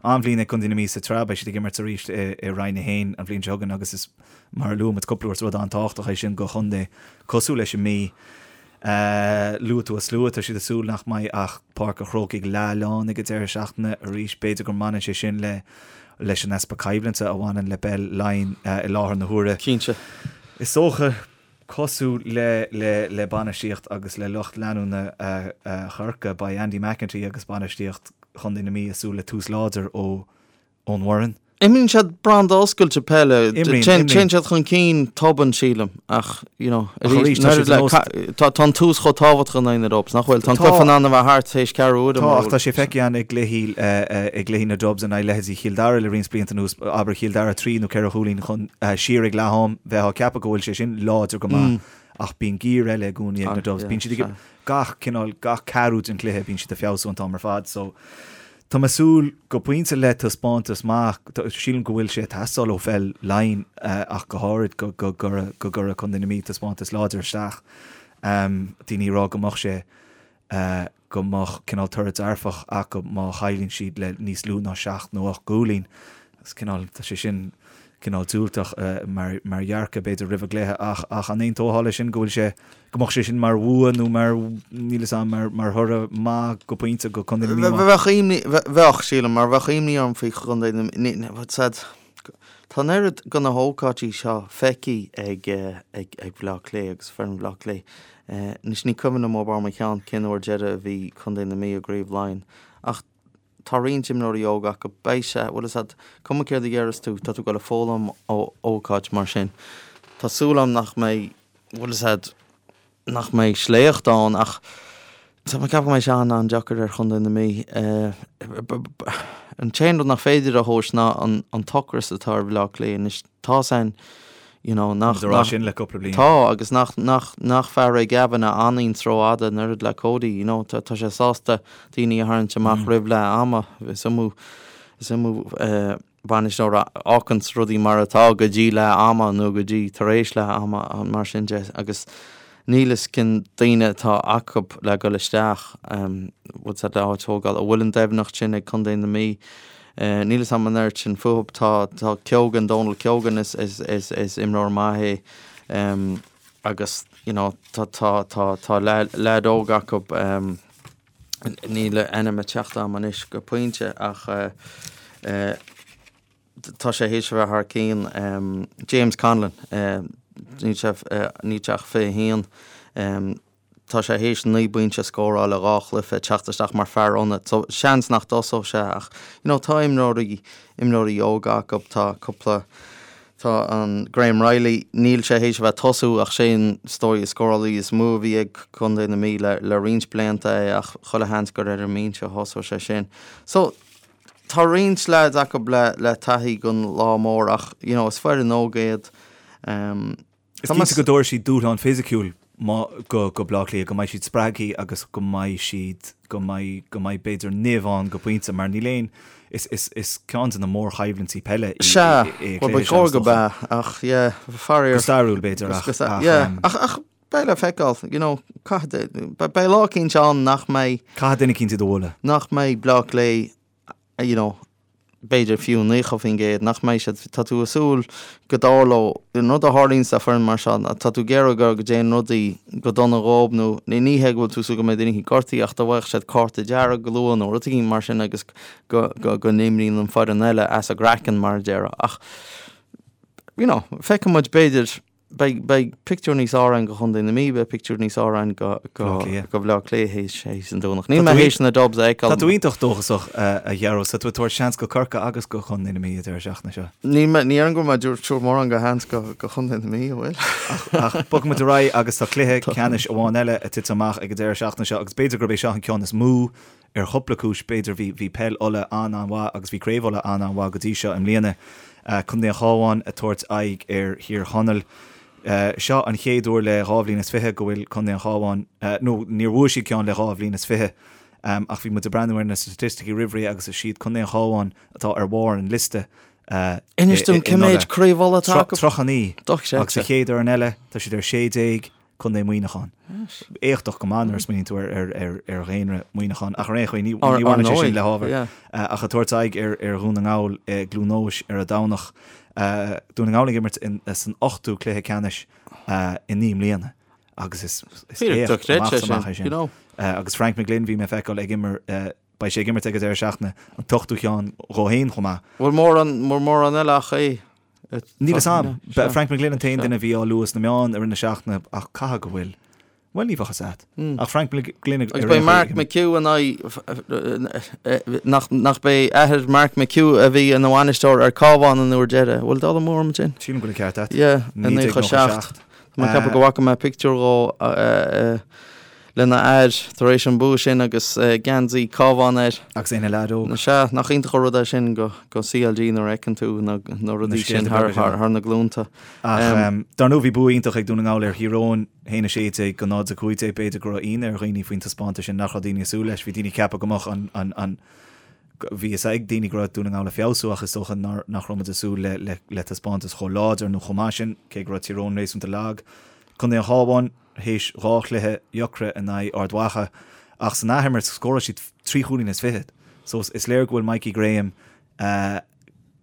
An-bhliain ag Contae na Mí sa tsraith, beidh siad ag imirt arís i Roinn 1 an bhliain seo chugainn agus is, mar a luaigh muid cúpla uair, is rud an-tábhachtach é sin do chontae cosúil leis an Mí. Luaigh tú an slua, tá siad ag súil nach mbeidh ach Páirc an Chrócaigh leath-lán ag an deireadh seachtaine arís. B'fhéidir go mbaineann sé sin le leis an easpa coimhlinte a bhaineann le peil Laighean i láthair na huaire. Cinnte. Is dócha, cosúil le le le bainistíocht agus le lucht leanúna Chorcaí, beidh Andy McEntee agus bainistíocht Chontae na Mí ag súil le tús láidir ó ón bhfoireann. Imríonn siad branda oscailte peile. Imríonn, Téann imríonn. siad chun cinn tobann, sílim, ach, you know, Ach arís, tá siad nós- tá tá an tús chomh tábhachtach in aghaidh na Dubs, nach bhfuil? Tá an Tá. cluiche in ann a bheith thart théis ceathrú uaire, Tá, mar ach tá sé feicthe againn i gcluichí, i gcluichí na Dubs in aghaidh leithéidí Chill Dara le roinnt blianta anuas, abair Chill Dara 3 nó 4 chúilín chun, siar ag leath am, bheifeá ag ceapadh go bhfuil sé sin láidir go maith, ach bíonn giar eile i gcónaí ag na Dubs. Bíonn siad ag, gach cineál, gach ceathrú den chluiche, bíonn siad ag feabhsú an t-am ar fad, so Tá mé ag súil go pointe le taispeántas maith. Sílim go bhfuil sé ag teastáil ó pheil Laighean ach go háirid go gcuirfeadh Contae na Mí taispeántas láidir isteach. Daoine ag rá go mbeadh sé, go mbeadh cineál toradh dearfach acu má chailleann siad le níos lú ná seacht nó ocht gcúilín. Is cineál, tá sé sin. cineál diúltach mar mar dhearcadh b'fhéidir roimh an gcluiche ach ach an aontófá leis sin go bhfuil sé go mbeadh sé sin mar bhua nó mar níl fhios a'm mar mar thoradh maith go pointe go Contae na Mí? Bheadh imní bheadh sílim mar bheadh imní orm faoi Chontae na Mí said tá an oiread de na hócáidí seo feicthe ag ag ag Bleá Cliath agus foireann Bhaile Átha Cliath. Anois ní cuimhin liom ó bharr mo cheann cén uair deireadh a bhí Contae na Mí i gCraobh Laighean ach Tá roinnt imreoirí óga acu. Beidh sé, bhfuil fhios a'd, cuma céard a dhéarfas tú, tá tú ag dul a foghlaim ó ócáid mar sin. Tá súil a'm nach mbeidh, bhfuil fhios a'd, nach mbeidh sléacht ann ach tá mé ag ceapadh go mbeidh sé an-an-deacair ar Chontae na Mí. An t-aon rud nach féidir a thomhas ná an t-ocras atá ar Bhaile Átha Cliath anois. Tá san, you know, nach, Tá rá sin le cúpla bliain. Tá, agus nach, nach, nach fear é Gavin a fhanann rófhada an oiread le Cody, you know, tá, tá sé sásta daoine a tharraingt amach roimh leath ama. Is iomaí, is iomaí eh, bainisteoir a fháganns rudaí mar atá go dtí leath ama nó go dtí tar éis leath ama, mar sin de, agus níl fhios cén daoine atá acu le dhul isteach, bhfuil fhios a'd le áit a thógáil, an bhfuil an doimhneacht sin ag Contae na Mí. Níl fhios a'm an oiread sin fúthu. Tá tá Keogan, Donal Keogan is is is is imreoir maith é agus you know tá tá tá tá leaid óg acu níl a ainm ag teacht a'm anois go pointe ach tá sé théis a bheith thar cionn. James Conlon, níl sé níl sé ach 21. Tá sé théis 9 bpointe a scóráil i 2 chluiche, teacht isteach mar fear ionaid. So seans nach dtosódh sé ach you know tá imreoirí imreoirí óga acu, tá cúpla tá an Graham Reilly, níl sé théis a bheith ag tosú ach sé an is dóigh scórálaí is mó a bhí ag Contae na Mí le le roinnt blianta é ach chuile sheans gur ar an mbinse a thosódh sé sin. So Tá roinnt leaids acu le le taithí don lá mór ach you know is foireann óg iad. Is cinnte go dtabharfaidh siad dúshlán fisiciúil go go Bleá Cliath, go mbeidh siad spreagtha agus go mbeidh siad go mbeidh go mbeidh b'fhéidir nimh ann go pointe mar níl aon is is is ceann de na mórchoimhlintí peile í Sea, é bhuel ba chóir go b'ea ach yeah faraor. Go stairiúil b'fhéidir ach ach yeah ach ach beidh le feiceáil you know caithfidh beidh lá eicínt ann nach mbeidh Caithfidh duine eicínt iad a bhualadh. nach mbeidh Bleá Cliath you know, b'fhéidir fiú 90%, nach mbeidh siad, tá tú ag súil go dtarlódh, an rud a tharlaíonn le foireann mar seo, tá tú ag iarraidh go go dtéann rudaí go dona dhób nó ní hé go bhfuil tú ag súil go mbeidh duine éicint gortaithe ach dá bhfaigheadh siad cárta dearg go luath nó rud éigin mar sin agus go go go n-imríonn an foireann eile as a gcraiceann mar a déarfá ach you know, feicfidh muid b'fhéidir Beidh, beidh pictiúr níos fearr againn go Chontae na Mí, beidh pictiúr níos fearr againn go, go, Bleá Cliath. go Bhleá Cliath théis, théis an Domhnach. Níl mé théis na Dubs a fheiceáil. Tá tú iontach dóchasach, a Ghearóid. Tá tú ag tabhairt seans go Corcaigh agus go Chontae na Mí an deireadh seachtaine seo. Níl mé, ní déarfainn go bhfuil mé ag tabhairt mórán go sheans go, go Chontae na Mí, an bhfuil? Ach bogfaidh muid ar aghaidh agus tá cluiche ceannais amháin eile ag titim amach ag an deireadh seachtaine seo agus b'fhéidir gurb é seo an ceann is mó Ar chúpla cúis, b'fhéidir, bhí bhí peil Uladh an-an-mhaith agus bhí Craobh Uladh an-an-mhaith go dtí seo i mbliana. Contae an Chabháin ag tabhairt aghaidh ar Thír Chonaill. Seo an chéad uair le 22 bhliain go bhfuil Contae an Chabháin, nó níor bhuaigh siad ceann le 22 bhliain, ach bhí muid ag breathnú ar na staitisticí roimh ré agus is iad Contae an Chabháin atá ar bharr an liosta Inis dom cé mhéid Craobh Uladh atá acu? 39. Agus sa chéad fhoireann eile, tá siad ar 16. Contae Mhuineacháin. Éachtach go maith nuair a smaoiníonn tú ar dhaonra Mhuineacháin, ach ar aon chaoi ní bhaineann sé sin le hábhar. Ach ag tabhairt aghaidh ar Dhún na nGall i gCluain Eois ar an Domhnach. Dún na nGall ag imirt san ochtú cluiche ceannais i 9 mbliana agus is éacht amach is amach é sin. Agus Frank McGlynn bhí mé ag feiceáil ag imir beidh sé ag imirt ag an deireadh seachtaine an t-ochtú cheann dhó féin chomh maith. Bhfuil mórán eile ach é? Níl fhios a'm. Frank McGlynn an t-aon duine a bhí á lua sna meáin i rith na seachtaine ach caithfidh go bhfuil. Bhuel, ní bheadh fhios a'd. Ach Frank McGlynn ag Agus beidh Mark McHugh in aghaidh nach nach b'é athair Mark McHugh a bhí ina bhainisteoir ar Cabhán an uair deiridh. Bhfuil dul amú orm ansin? Sílim go bhfuil an ceart a'd. Yeah, i 97. Tá mé ag ceapadh go bhfaca mé pictiúr dhó lena athair tar éis an bua sin agus geansaí Cabhán air. Agus é ina leaid óg. Sea, nach iontach an rud é sin go CLG nuair a fheiceann tú na rudaí sin thar na glúnta. Ach dar ndóigh bhí bua iontach ag Dún na nGall ar Thír Eoghain, 1-16 go 0-15. B'fhéidir go raibh ionadh ar dhaoine faoin taispeántas sin, nach raibh daoine ag súil leis. Bhí daoine ag ceapadh go mbeadh an Bhí fhios ag daoine go raibh Dún na nGall ag feabhsú ach is dócha nach raibh muid ag súil le taispeántas chomh láidir nó chomh maith sin, cé go raibh Tír Eoghain réasúnta lag. Contae an Chabháin, théis 2 chluiche dheacra in aghaidh Ard Mhacha ach san athimirt scóráil siad 3 chúilín is fichead. So is léir go bhfuil Mikey Graham,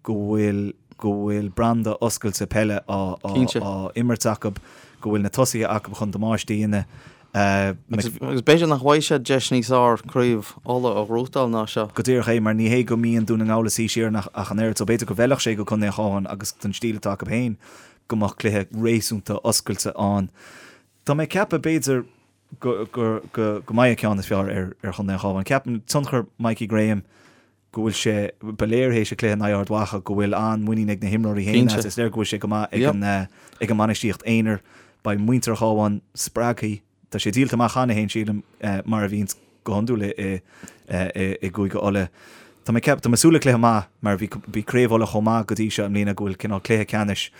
go bhfuil. go bhfuil branda oscailte peile á á imirt acu, go bhfuil na tosaithe acu chun damáiste a dhéanamh. Agus b'fhéidir nach bhfaighidh siad deis níos fhearr craobh Uladh a ghnóthachtáil ná seo. Go díreach é, mar ní hé go mbíonn Dún na nGall ag suí siar ach an oiread, so b'fhéidir go bhfeilfeadh sé go Contae an Chabháin agus don stíl atá acu féin go mbeadh cluiche réasúnta oscailte ann. Tá mé ag ceapadh b'fhéidir go go go mbeidh an ceann is fearr ar ar Chontae an Chabháin. Ceapaim tionchar Mikey Graham go bhfuil sé, ba léir théis an cluiche in aghaidh Ard Mhacha go bhfuil an-mhuinín ag na himreoirí féin as. Is léir go bhfuil sé go maith ag an ag an mbainistíocht aonair. Beidh muintir an Chabháin spreagtha. Tá sé díolta amach cheana féin, sílim, mar a bhíonns go hiondúil i i gCúige Uladh. Tá mé ceap, tá mé ag súil le cluiche maith mar bhí bhí Craobh Uladh chomh maith go dtí seo i mbliana go bhfuil cineál cluiche ceannais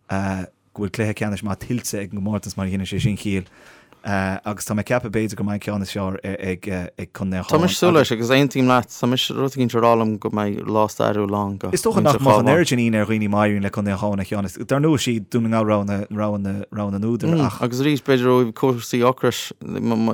go bhfuil cluiche ceannais maith tuillte ag an gcomórtas mar a dhéanann sé sin ciall agus tá mé ag ceapadh b'fhéidir go mbeidh an ceann is fearr ag Contae an Tá mise ag súil leis agus aontaím leat, tá mise rud éicint ag rá liom go mbeidh lá stairiúil ann go Is dócha nach mbeadh an oiread sin ionadh ar dhaoine má éiríonn le Contae an Chabháin an ceann is dar ndóigh is iad Dún na Ngall rogha na rogha na rogha na n-údar ach. Agus arís b'fhéidir ó thaobh cúrsaí ocrais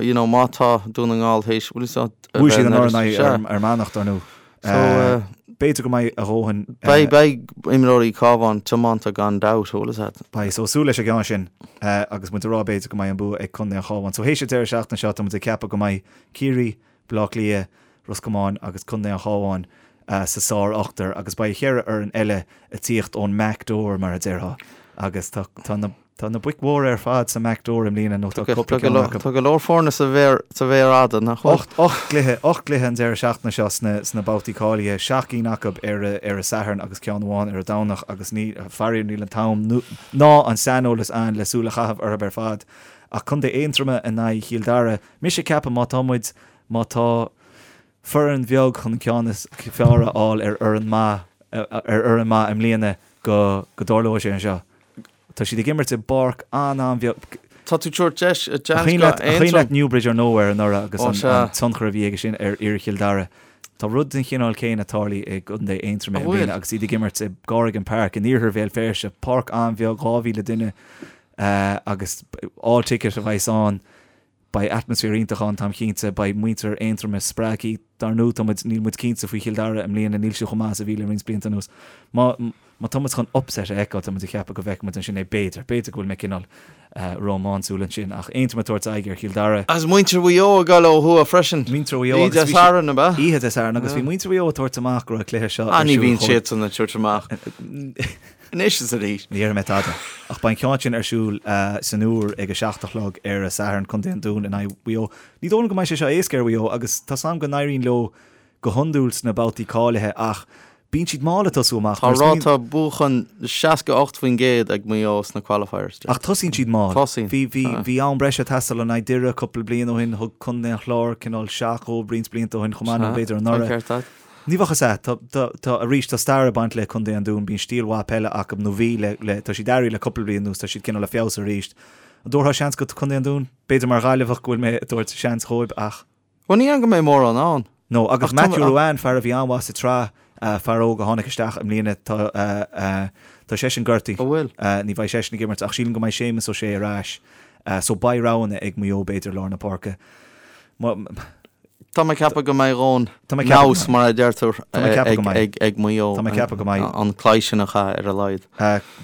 you know má tá Dún na nGall théis bhfuil fhios agat Bhuaigh siad anuraidh in aghaidh Fhear Manach dar ndóigh. So b'fhéidir go mbeidh a dhóthain. Beidh, beidh imreoirí Cabhán tiomanta gan dabht, bhfuil fhios agat. Beidh, so súil leis an gceann sin agus muid ag rá b'fhéidir go mbeidh an bua ag Contae an Chabháin. So théis an deireadh seachtaine seo tá muid ag ceapadh go mbeidh Ciarraí, Baile Átha Cliath, Ros Comáin agus Contae an Chabháin sa sár-ochtar agus beidh cheithre fhoireann eile ag tíocht ón mback door mar a déarfá agus tá, tá na. Tá na boic mhóra ar fad sa mback door i mbliana nó tá cúpla ceann acu. Tá go leor foirne sa mhéar fhada, nach bhfuil? 8 gcluiche, 8 gcluiche an deireadh seachtaine seo sna babhtaí cáilithe, 7 gcinn acu ar an Satharn agus ceann amháin ar an Domhnach agus ní, faraor níl an t-am ná an saineolas ann le súil a chaitheamh orthu ar fad. Ach Contae Aontroma in aghaidh Chill Dara, mise ag ceapadh má tá muid, má tá foireann bheag chun an ceann is fearr a fháil ar fhoireann maith, ar fhoireann maith i mbliana go dtarlóidh sé anseo. Tá siad ag imirt i bpáirc an-an-bheag. Tá tú ag tabhairt deis, a cuimhin leat, an cuimhin leat Newbridge or Nowhere anuraidh agus an tionchar a bhí aige sin ar fhir Chill Dara. Tá rud den chineál céanna tarlaithe i gContae Aontroma i mbliana agus iad ag imirt i gCorrigan Park in iarthar Bhéal Feirste, páirc an-bheag, 2,000 duine agus all ticket a bheas ann. Beidh atmaisféar iontach ann, táim cinnte. Beidh muintir Aontroma spreagtha. Dar ndóigh, tá muid, níl muid cinnte faoi Chill Dara i mbliana, níl siad chomh maith is a bhí le roinnt blianta anuas. Má, má tá muid chun upset a fheiceáil, tá muid ag ceapadh go bhfeicfidh muid ansin é, b'fhéidir. B'fhéidir go bhfuil mé cineál rómánsúil ansin, ach Aontroim ag tabhairt aghaidh ar Chill Dara. Agus muintir Mhaigh Eo ag dul ó thuaidh freisin. Muintir Mhaigh Eo agus bhí Oíche Dé Sathairn, ab ea? Oíche Dé Sathairn, agus bhí muintir Mhaigh Eo ag tabhairt amach go raibh an cluiche seo ar siúl. Ah, ní bhíonn siadsan ag tabhairt amach. Anois is arís. Ní déarfaidh mé tada. Ach beidh an ceann sin ar siúl san Iúr ag a 7 a chlog ar an Satharn, Contae an Dúin in aghaidh Mhaigh Eo. Ní dóigh liom go mbeidh sé seo éasca ar Mhaigh Eo agus tá's a'm go n-éiríonn leo go hiondúil sna babhtaí cáilithe ach bíonn siad mall ag tosú amach. Tá ráta buachan 68% ag Maigh Eo sna qualifiers. Ach tosaíonn siad mall. Tosaíonn. Bhí, bhí, bhí am breise ag teastáil in aghaidh Doire cúpla bliain ó shin, thug Contae an Chláir cineál seach dhóibh roinnt blianta ó shin chomh maith nó b'fhéidir anuraidh. Tá ceart agat. Ní bheadh fhios a'd. Tá, tá, tá, arís, tá stair ag baint le Contae an Dúin, bíonn stíl mhaith peile acu, nó bhí le, le, tá siad athraithe le cúpla bliain anuas, tá siad cineál ag feabhsú arís. An dtabharfá seans go Contae an Dúin? B'fhéidir mar Ghaillimheach go bhfuil mé ag tabhairt seans dhóibh ach. Bhuel, ní dhéarfainn go mbeidh mórán ann. No, agus Matthew Ruane, fear a bhí an-mhaith sa tsraith, fear óg a tháinig isteach i mbliana, tá, tá seisean gortaithe. An bhfuil? Ní bheidh seisean ag imirt ach sílim go mbeidh Séamus Ó Sé ar ais. So beidh roghanna ag Maigh Eo b'fhéidir i lár na páirce. Má. Tá mé ag ceapadh go mbeidh a dhóthain nous, mar a deirtear, ag Maigh Eo Tá mé ag ceapadh go mbeidh. an cluiche sin a chaitheamh ar a laghad.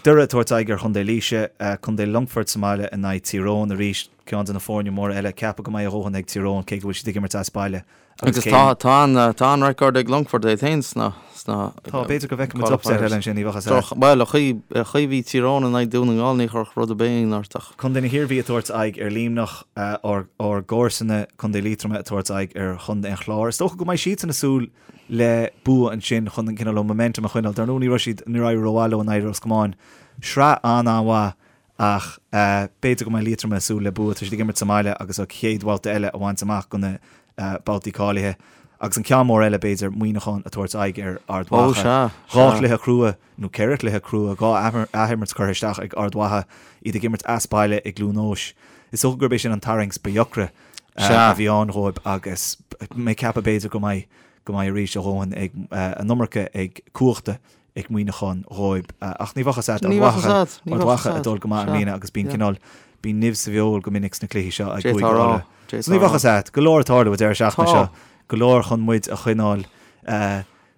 Doire ag tabhairt aghaidh ar Chontae Laoise, Contae Longfoirt sa mbaile in aghaidh Tír Eoghain arís, ceann de na foirne móra eile. Ceapadh go mbeidh a dhóthain ag Tír Eoghain cé go bhfuil siad ag imirt as baile. Agus tá tá an tá an record ag Longfort iad féin sna sna Tá, b'fhéidir go bhfeicfidh muid upset eile ansin, ní bheadh fhios a'd. Bhuel, an chaoi an chaoi a bhí Tír Eoghain in aghaidh Dún na nGall ní chuirfeadh rud ar bith ionadh ort ach. Contae na hIarmhí ag tabhairt aghaidh ar Luimneach, ár ár gcomharsana, Contae Liatroma ag tabhairt aghaidh ar Chontae an Chláir. Is dócha go mbeidh siadsan ag súil le bua ansin chun an cineál momentum a choinneáil. Dar ndóigh ní raibh siad, níor éirigh rómhaith leo in aghaidh Ros Comáin. Sraith an-an-mhaith ach b'fhéidir go mbeidh Liatroma ag súil le bua. Tá siad ag imirt sa mbaile agus an chéad bhabhta eile a bhaint amach go na babhtaí cáilithe. Agus an ceann mór eile b'fhéidir, Muineachán ag tabhairt aghaidh ar Ard Mhacha. Dhá chluiche crua, nó ceithre chluiche crua, dhá athimirt curtha isteach ag Ard Mhacha, iad ag imirt as baile i gCluain Eois. Is dócha gurb é sin an tarraingt ba dheacra a bhí ann dhóibh agus mé ag ceapadh b'fhéidir go mbeidh go mbeidh arís a dhóthain ag an iomarca ag cumhachta ag Muineachán dhóibh. Ach ní bheadh fhios a'd, Ard Mhacha, Ard Mhacha ag dul go maith i mbliana agus bíonn cineál, bíonn nimh sa bhfeoil go minic sna cluichí seo ag Cúige Uladh. So ní bheadh fhios a'd, go leor ag tarlú an deireadh seachtaine seo, go leor chun muid a choinneáil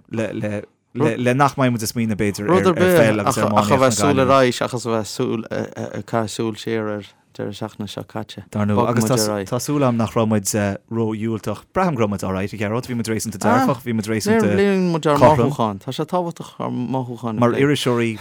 le, le, Le nach mbeidh muid ag smaoineamh b'fhéidir ar pheil agus ar iománaíocht. Ach a bheith súil ar aghaidh seachas a bheith súil ag caitheamh súil siar ar deireadh seachtaine seo caite. Dar ndóigh, agus tá súil agam nach raibh muid ró-dhiúltach. Braithim go raibh muid alright, a Ghearóid, bhí muid réasúnta dearfach, bhí muid réasúnta Léiríonn muid ár cothrom. mothúcháin. Tá sé tábhachtach ár mothúcháin a Mar phlé. iriseoirí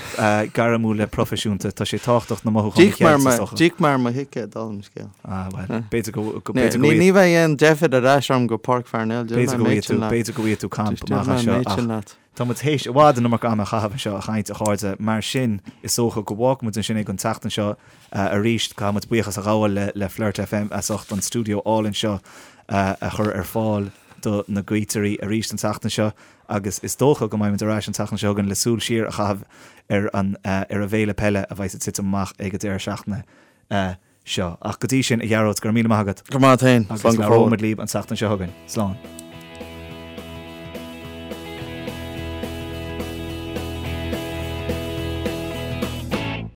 gairmiúla proifisiúnta, tá sé tábhachtach na mothúcháin a D'íoc mé ar cheilt, is dócha. D'íoc mé ar mo thicéad, dála an scéil. Ah, bhuel, b'fhéidir go b'fhéidir go Ní bheidh aon deifir ar ais orm go Páirc Pharnell, B'fhéidir go bhfaighidh tú, b'fhéidir go bhfaighidh tú camp amach anseo ach tá muid théis i bhfad an iomarca ama a chaitheamh anseo a chaint, a chairde, mar sin is dócha go bhfágfaidh muid ansin é don tseachtain seo arís. Caithfidh muid buíochas a ghabháil le le Flirt FM as ucht an stiúideo álainn seo a chur ar fáil do na Gaoitirí arís an tseachtain seo agus is dócha go mbeidh muid ar ais an tseachtain seo chugainn le súil siar a chaitheamh ar an ar an bhféile peile a bheidh ag titim amach ag an deireadh seachtaine seo. Ach go dtí sin, a Ghearóid, go raibh míle maith agat. Go raibh maith agat féin. Agus labhróidh muid libh an tseachtain seo chugainn. Slán.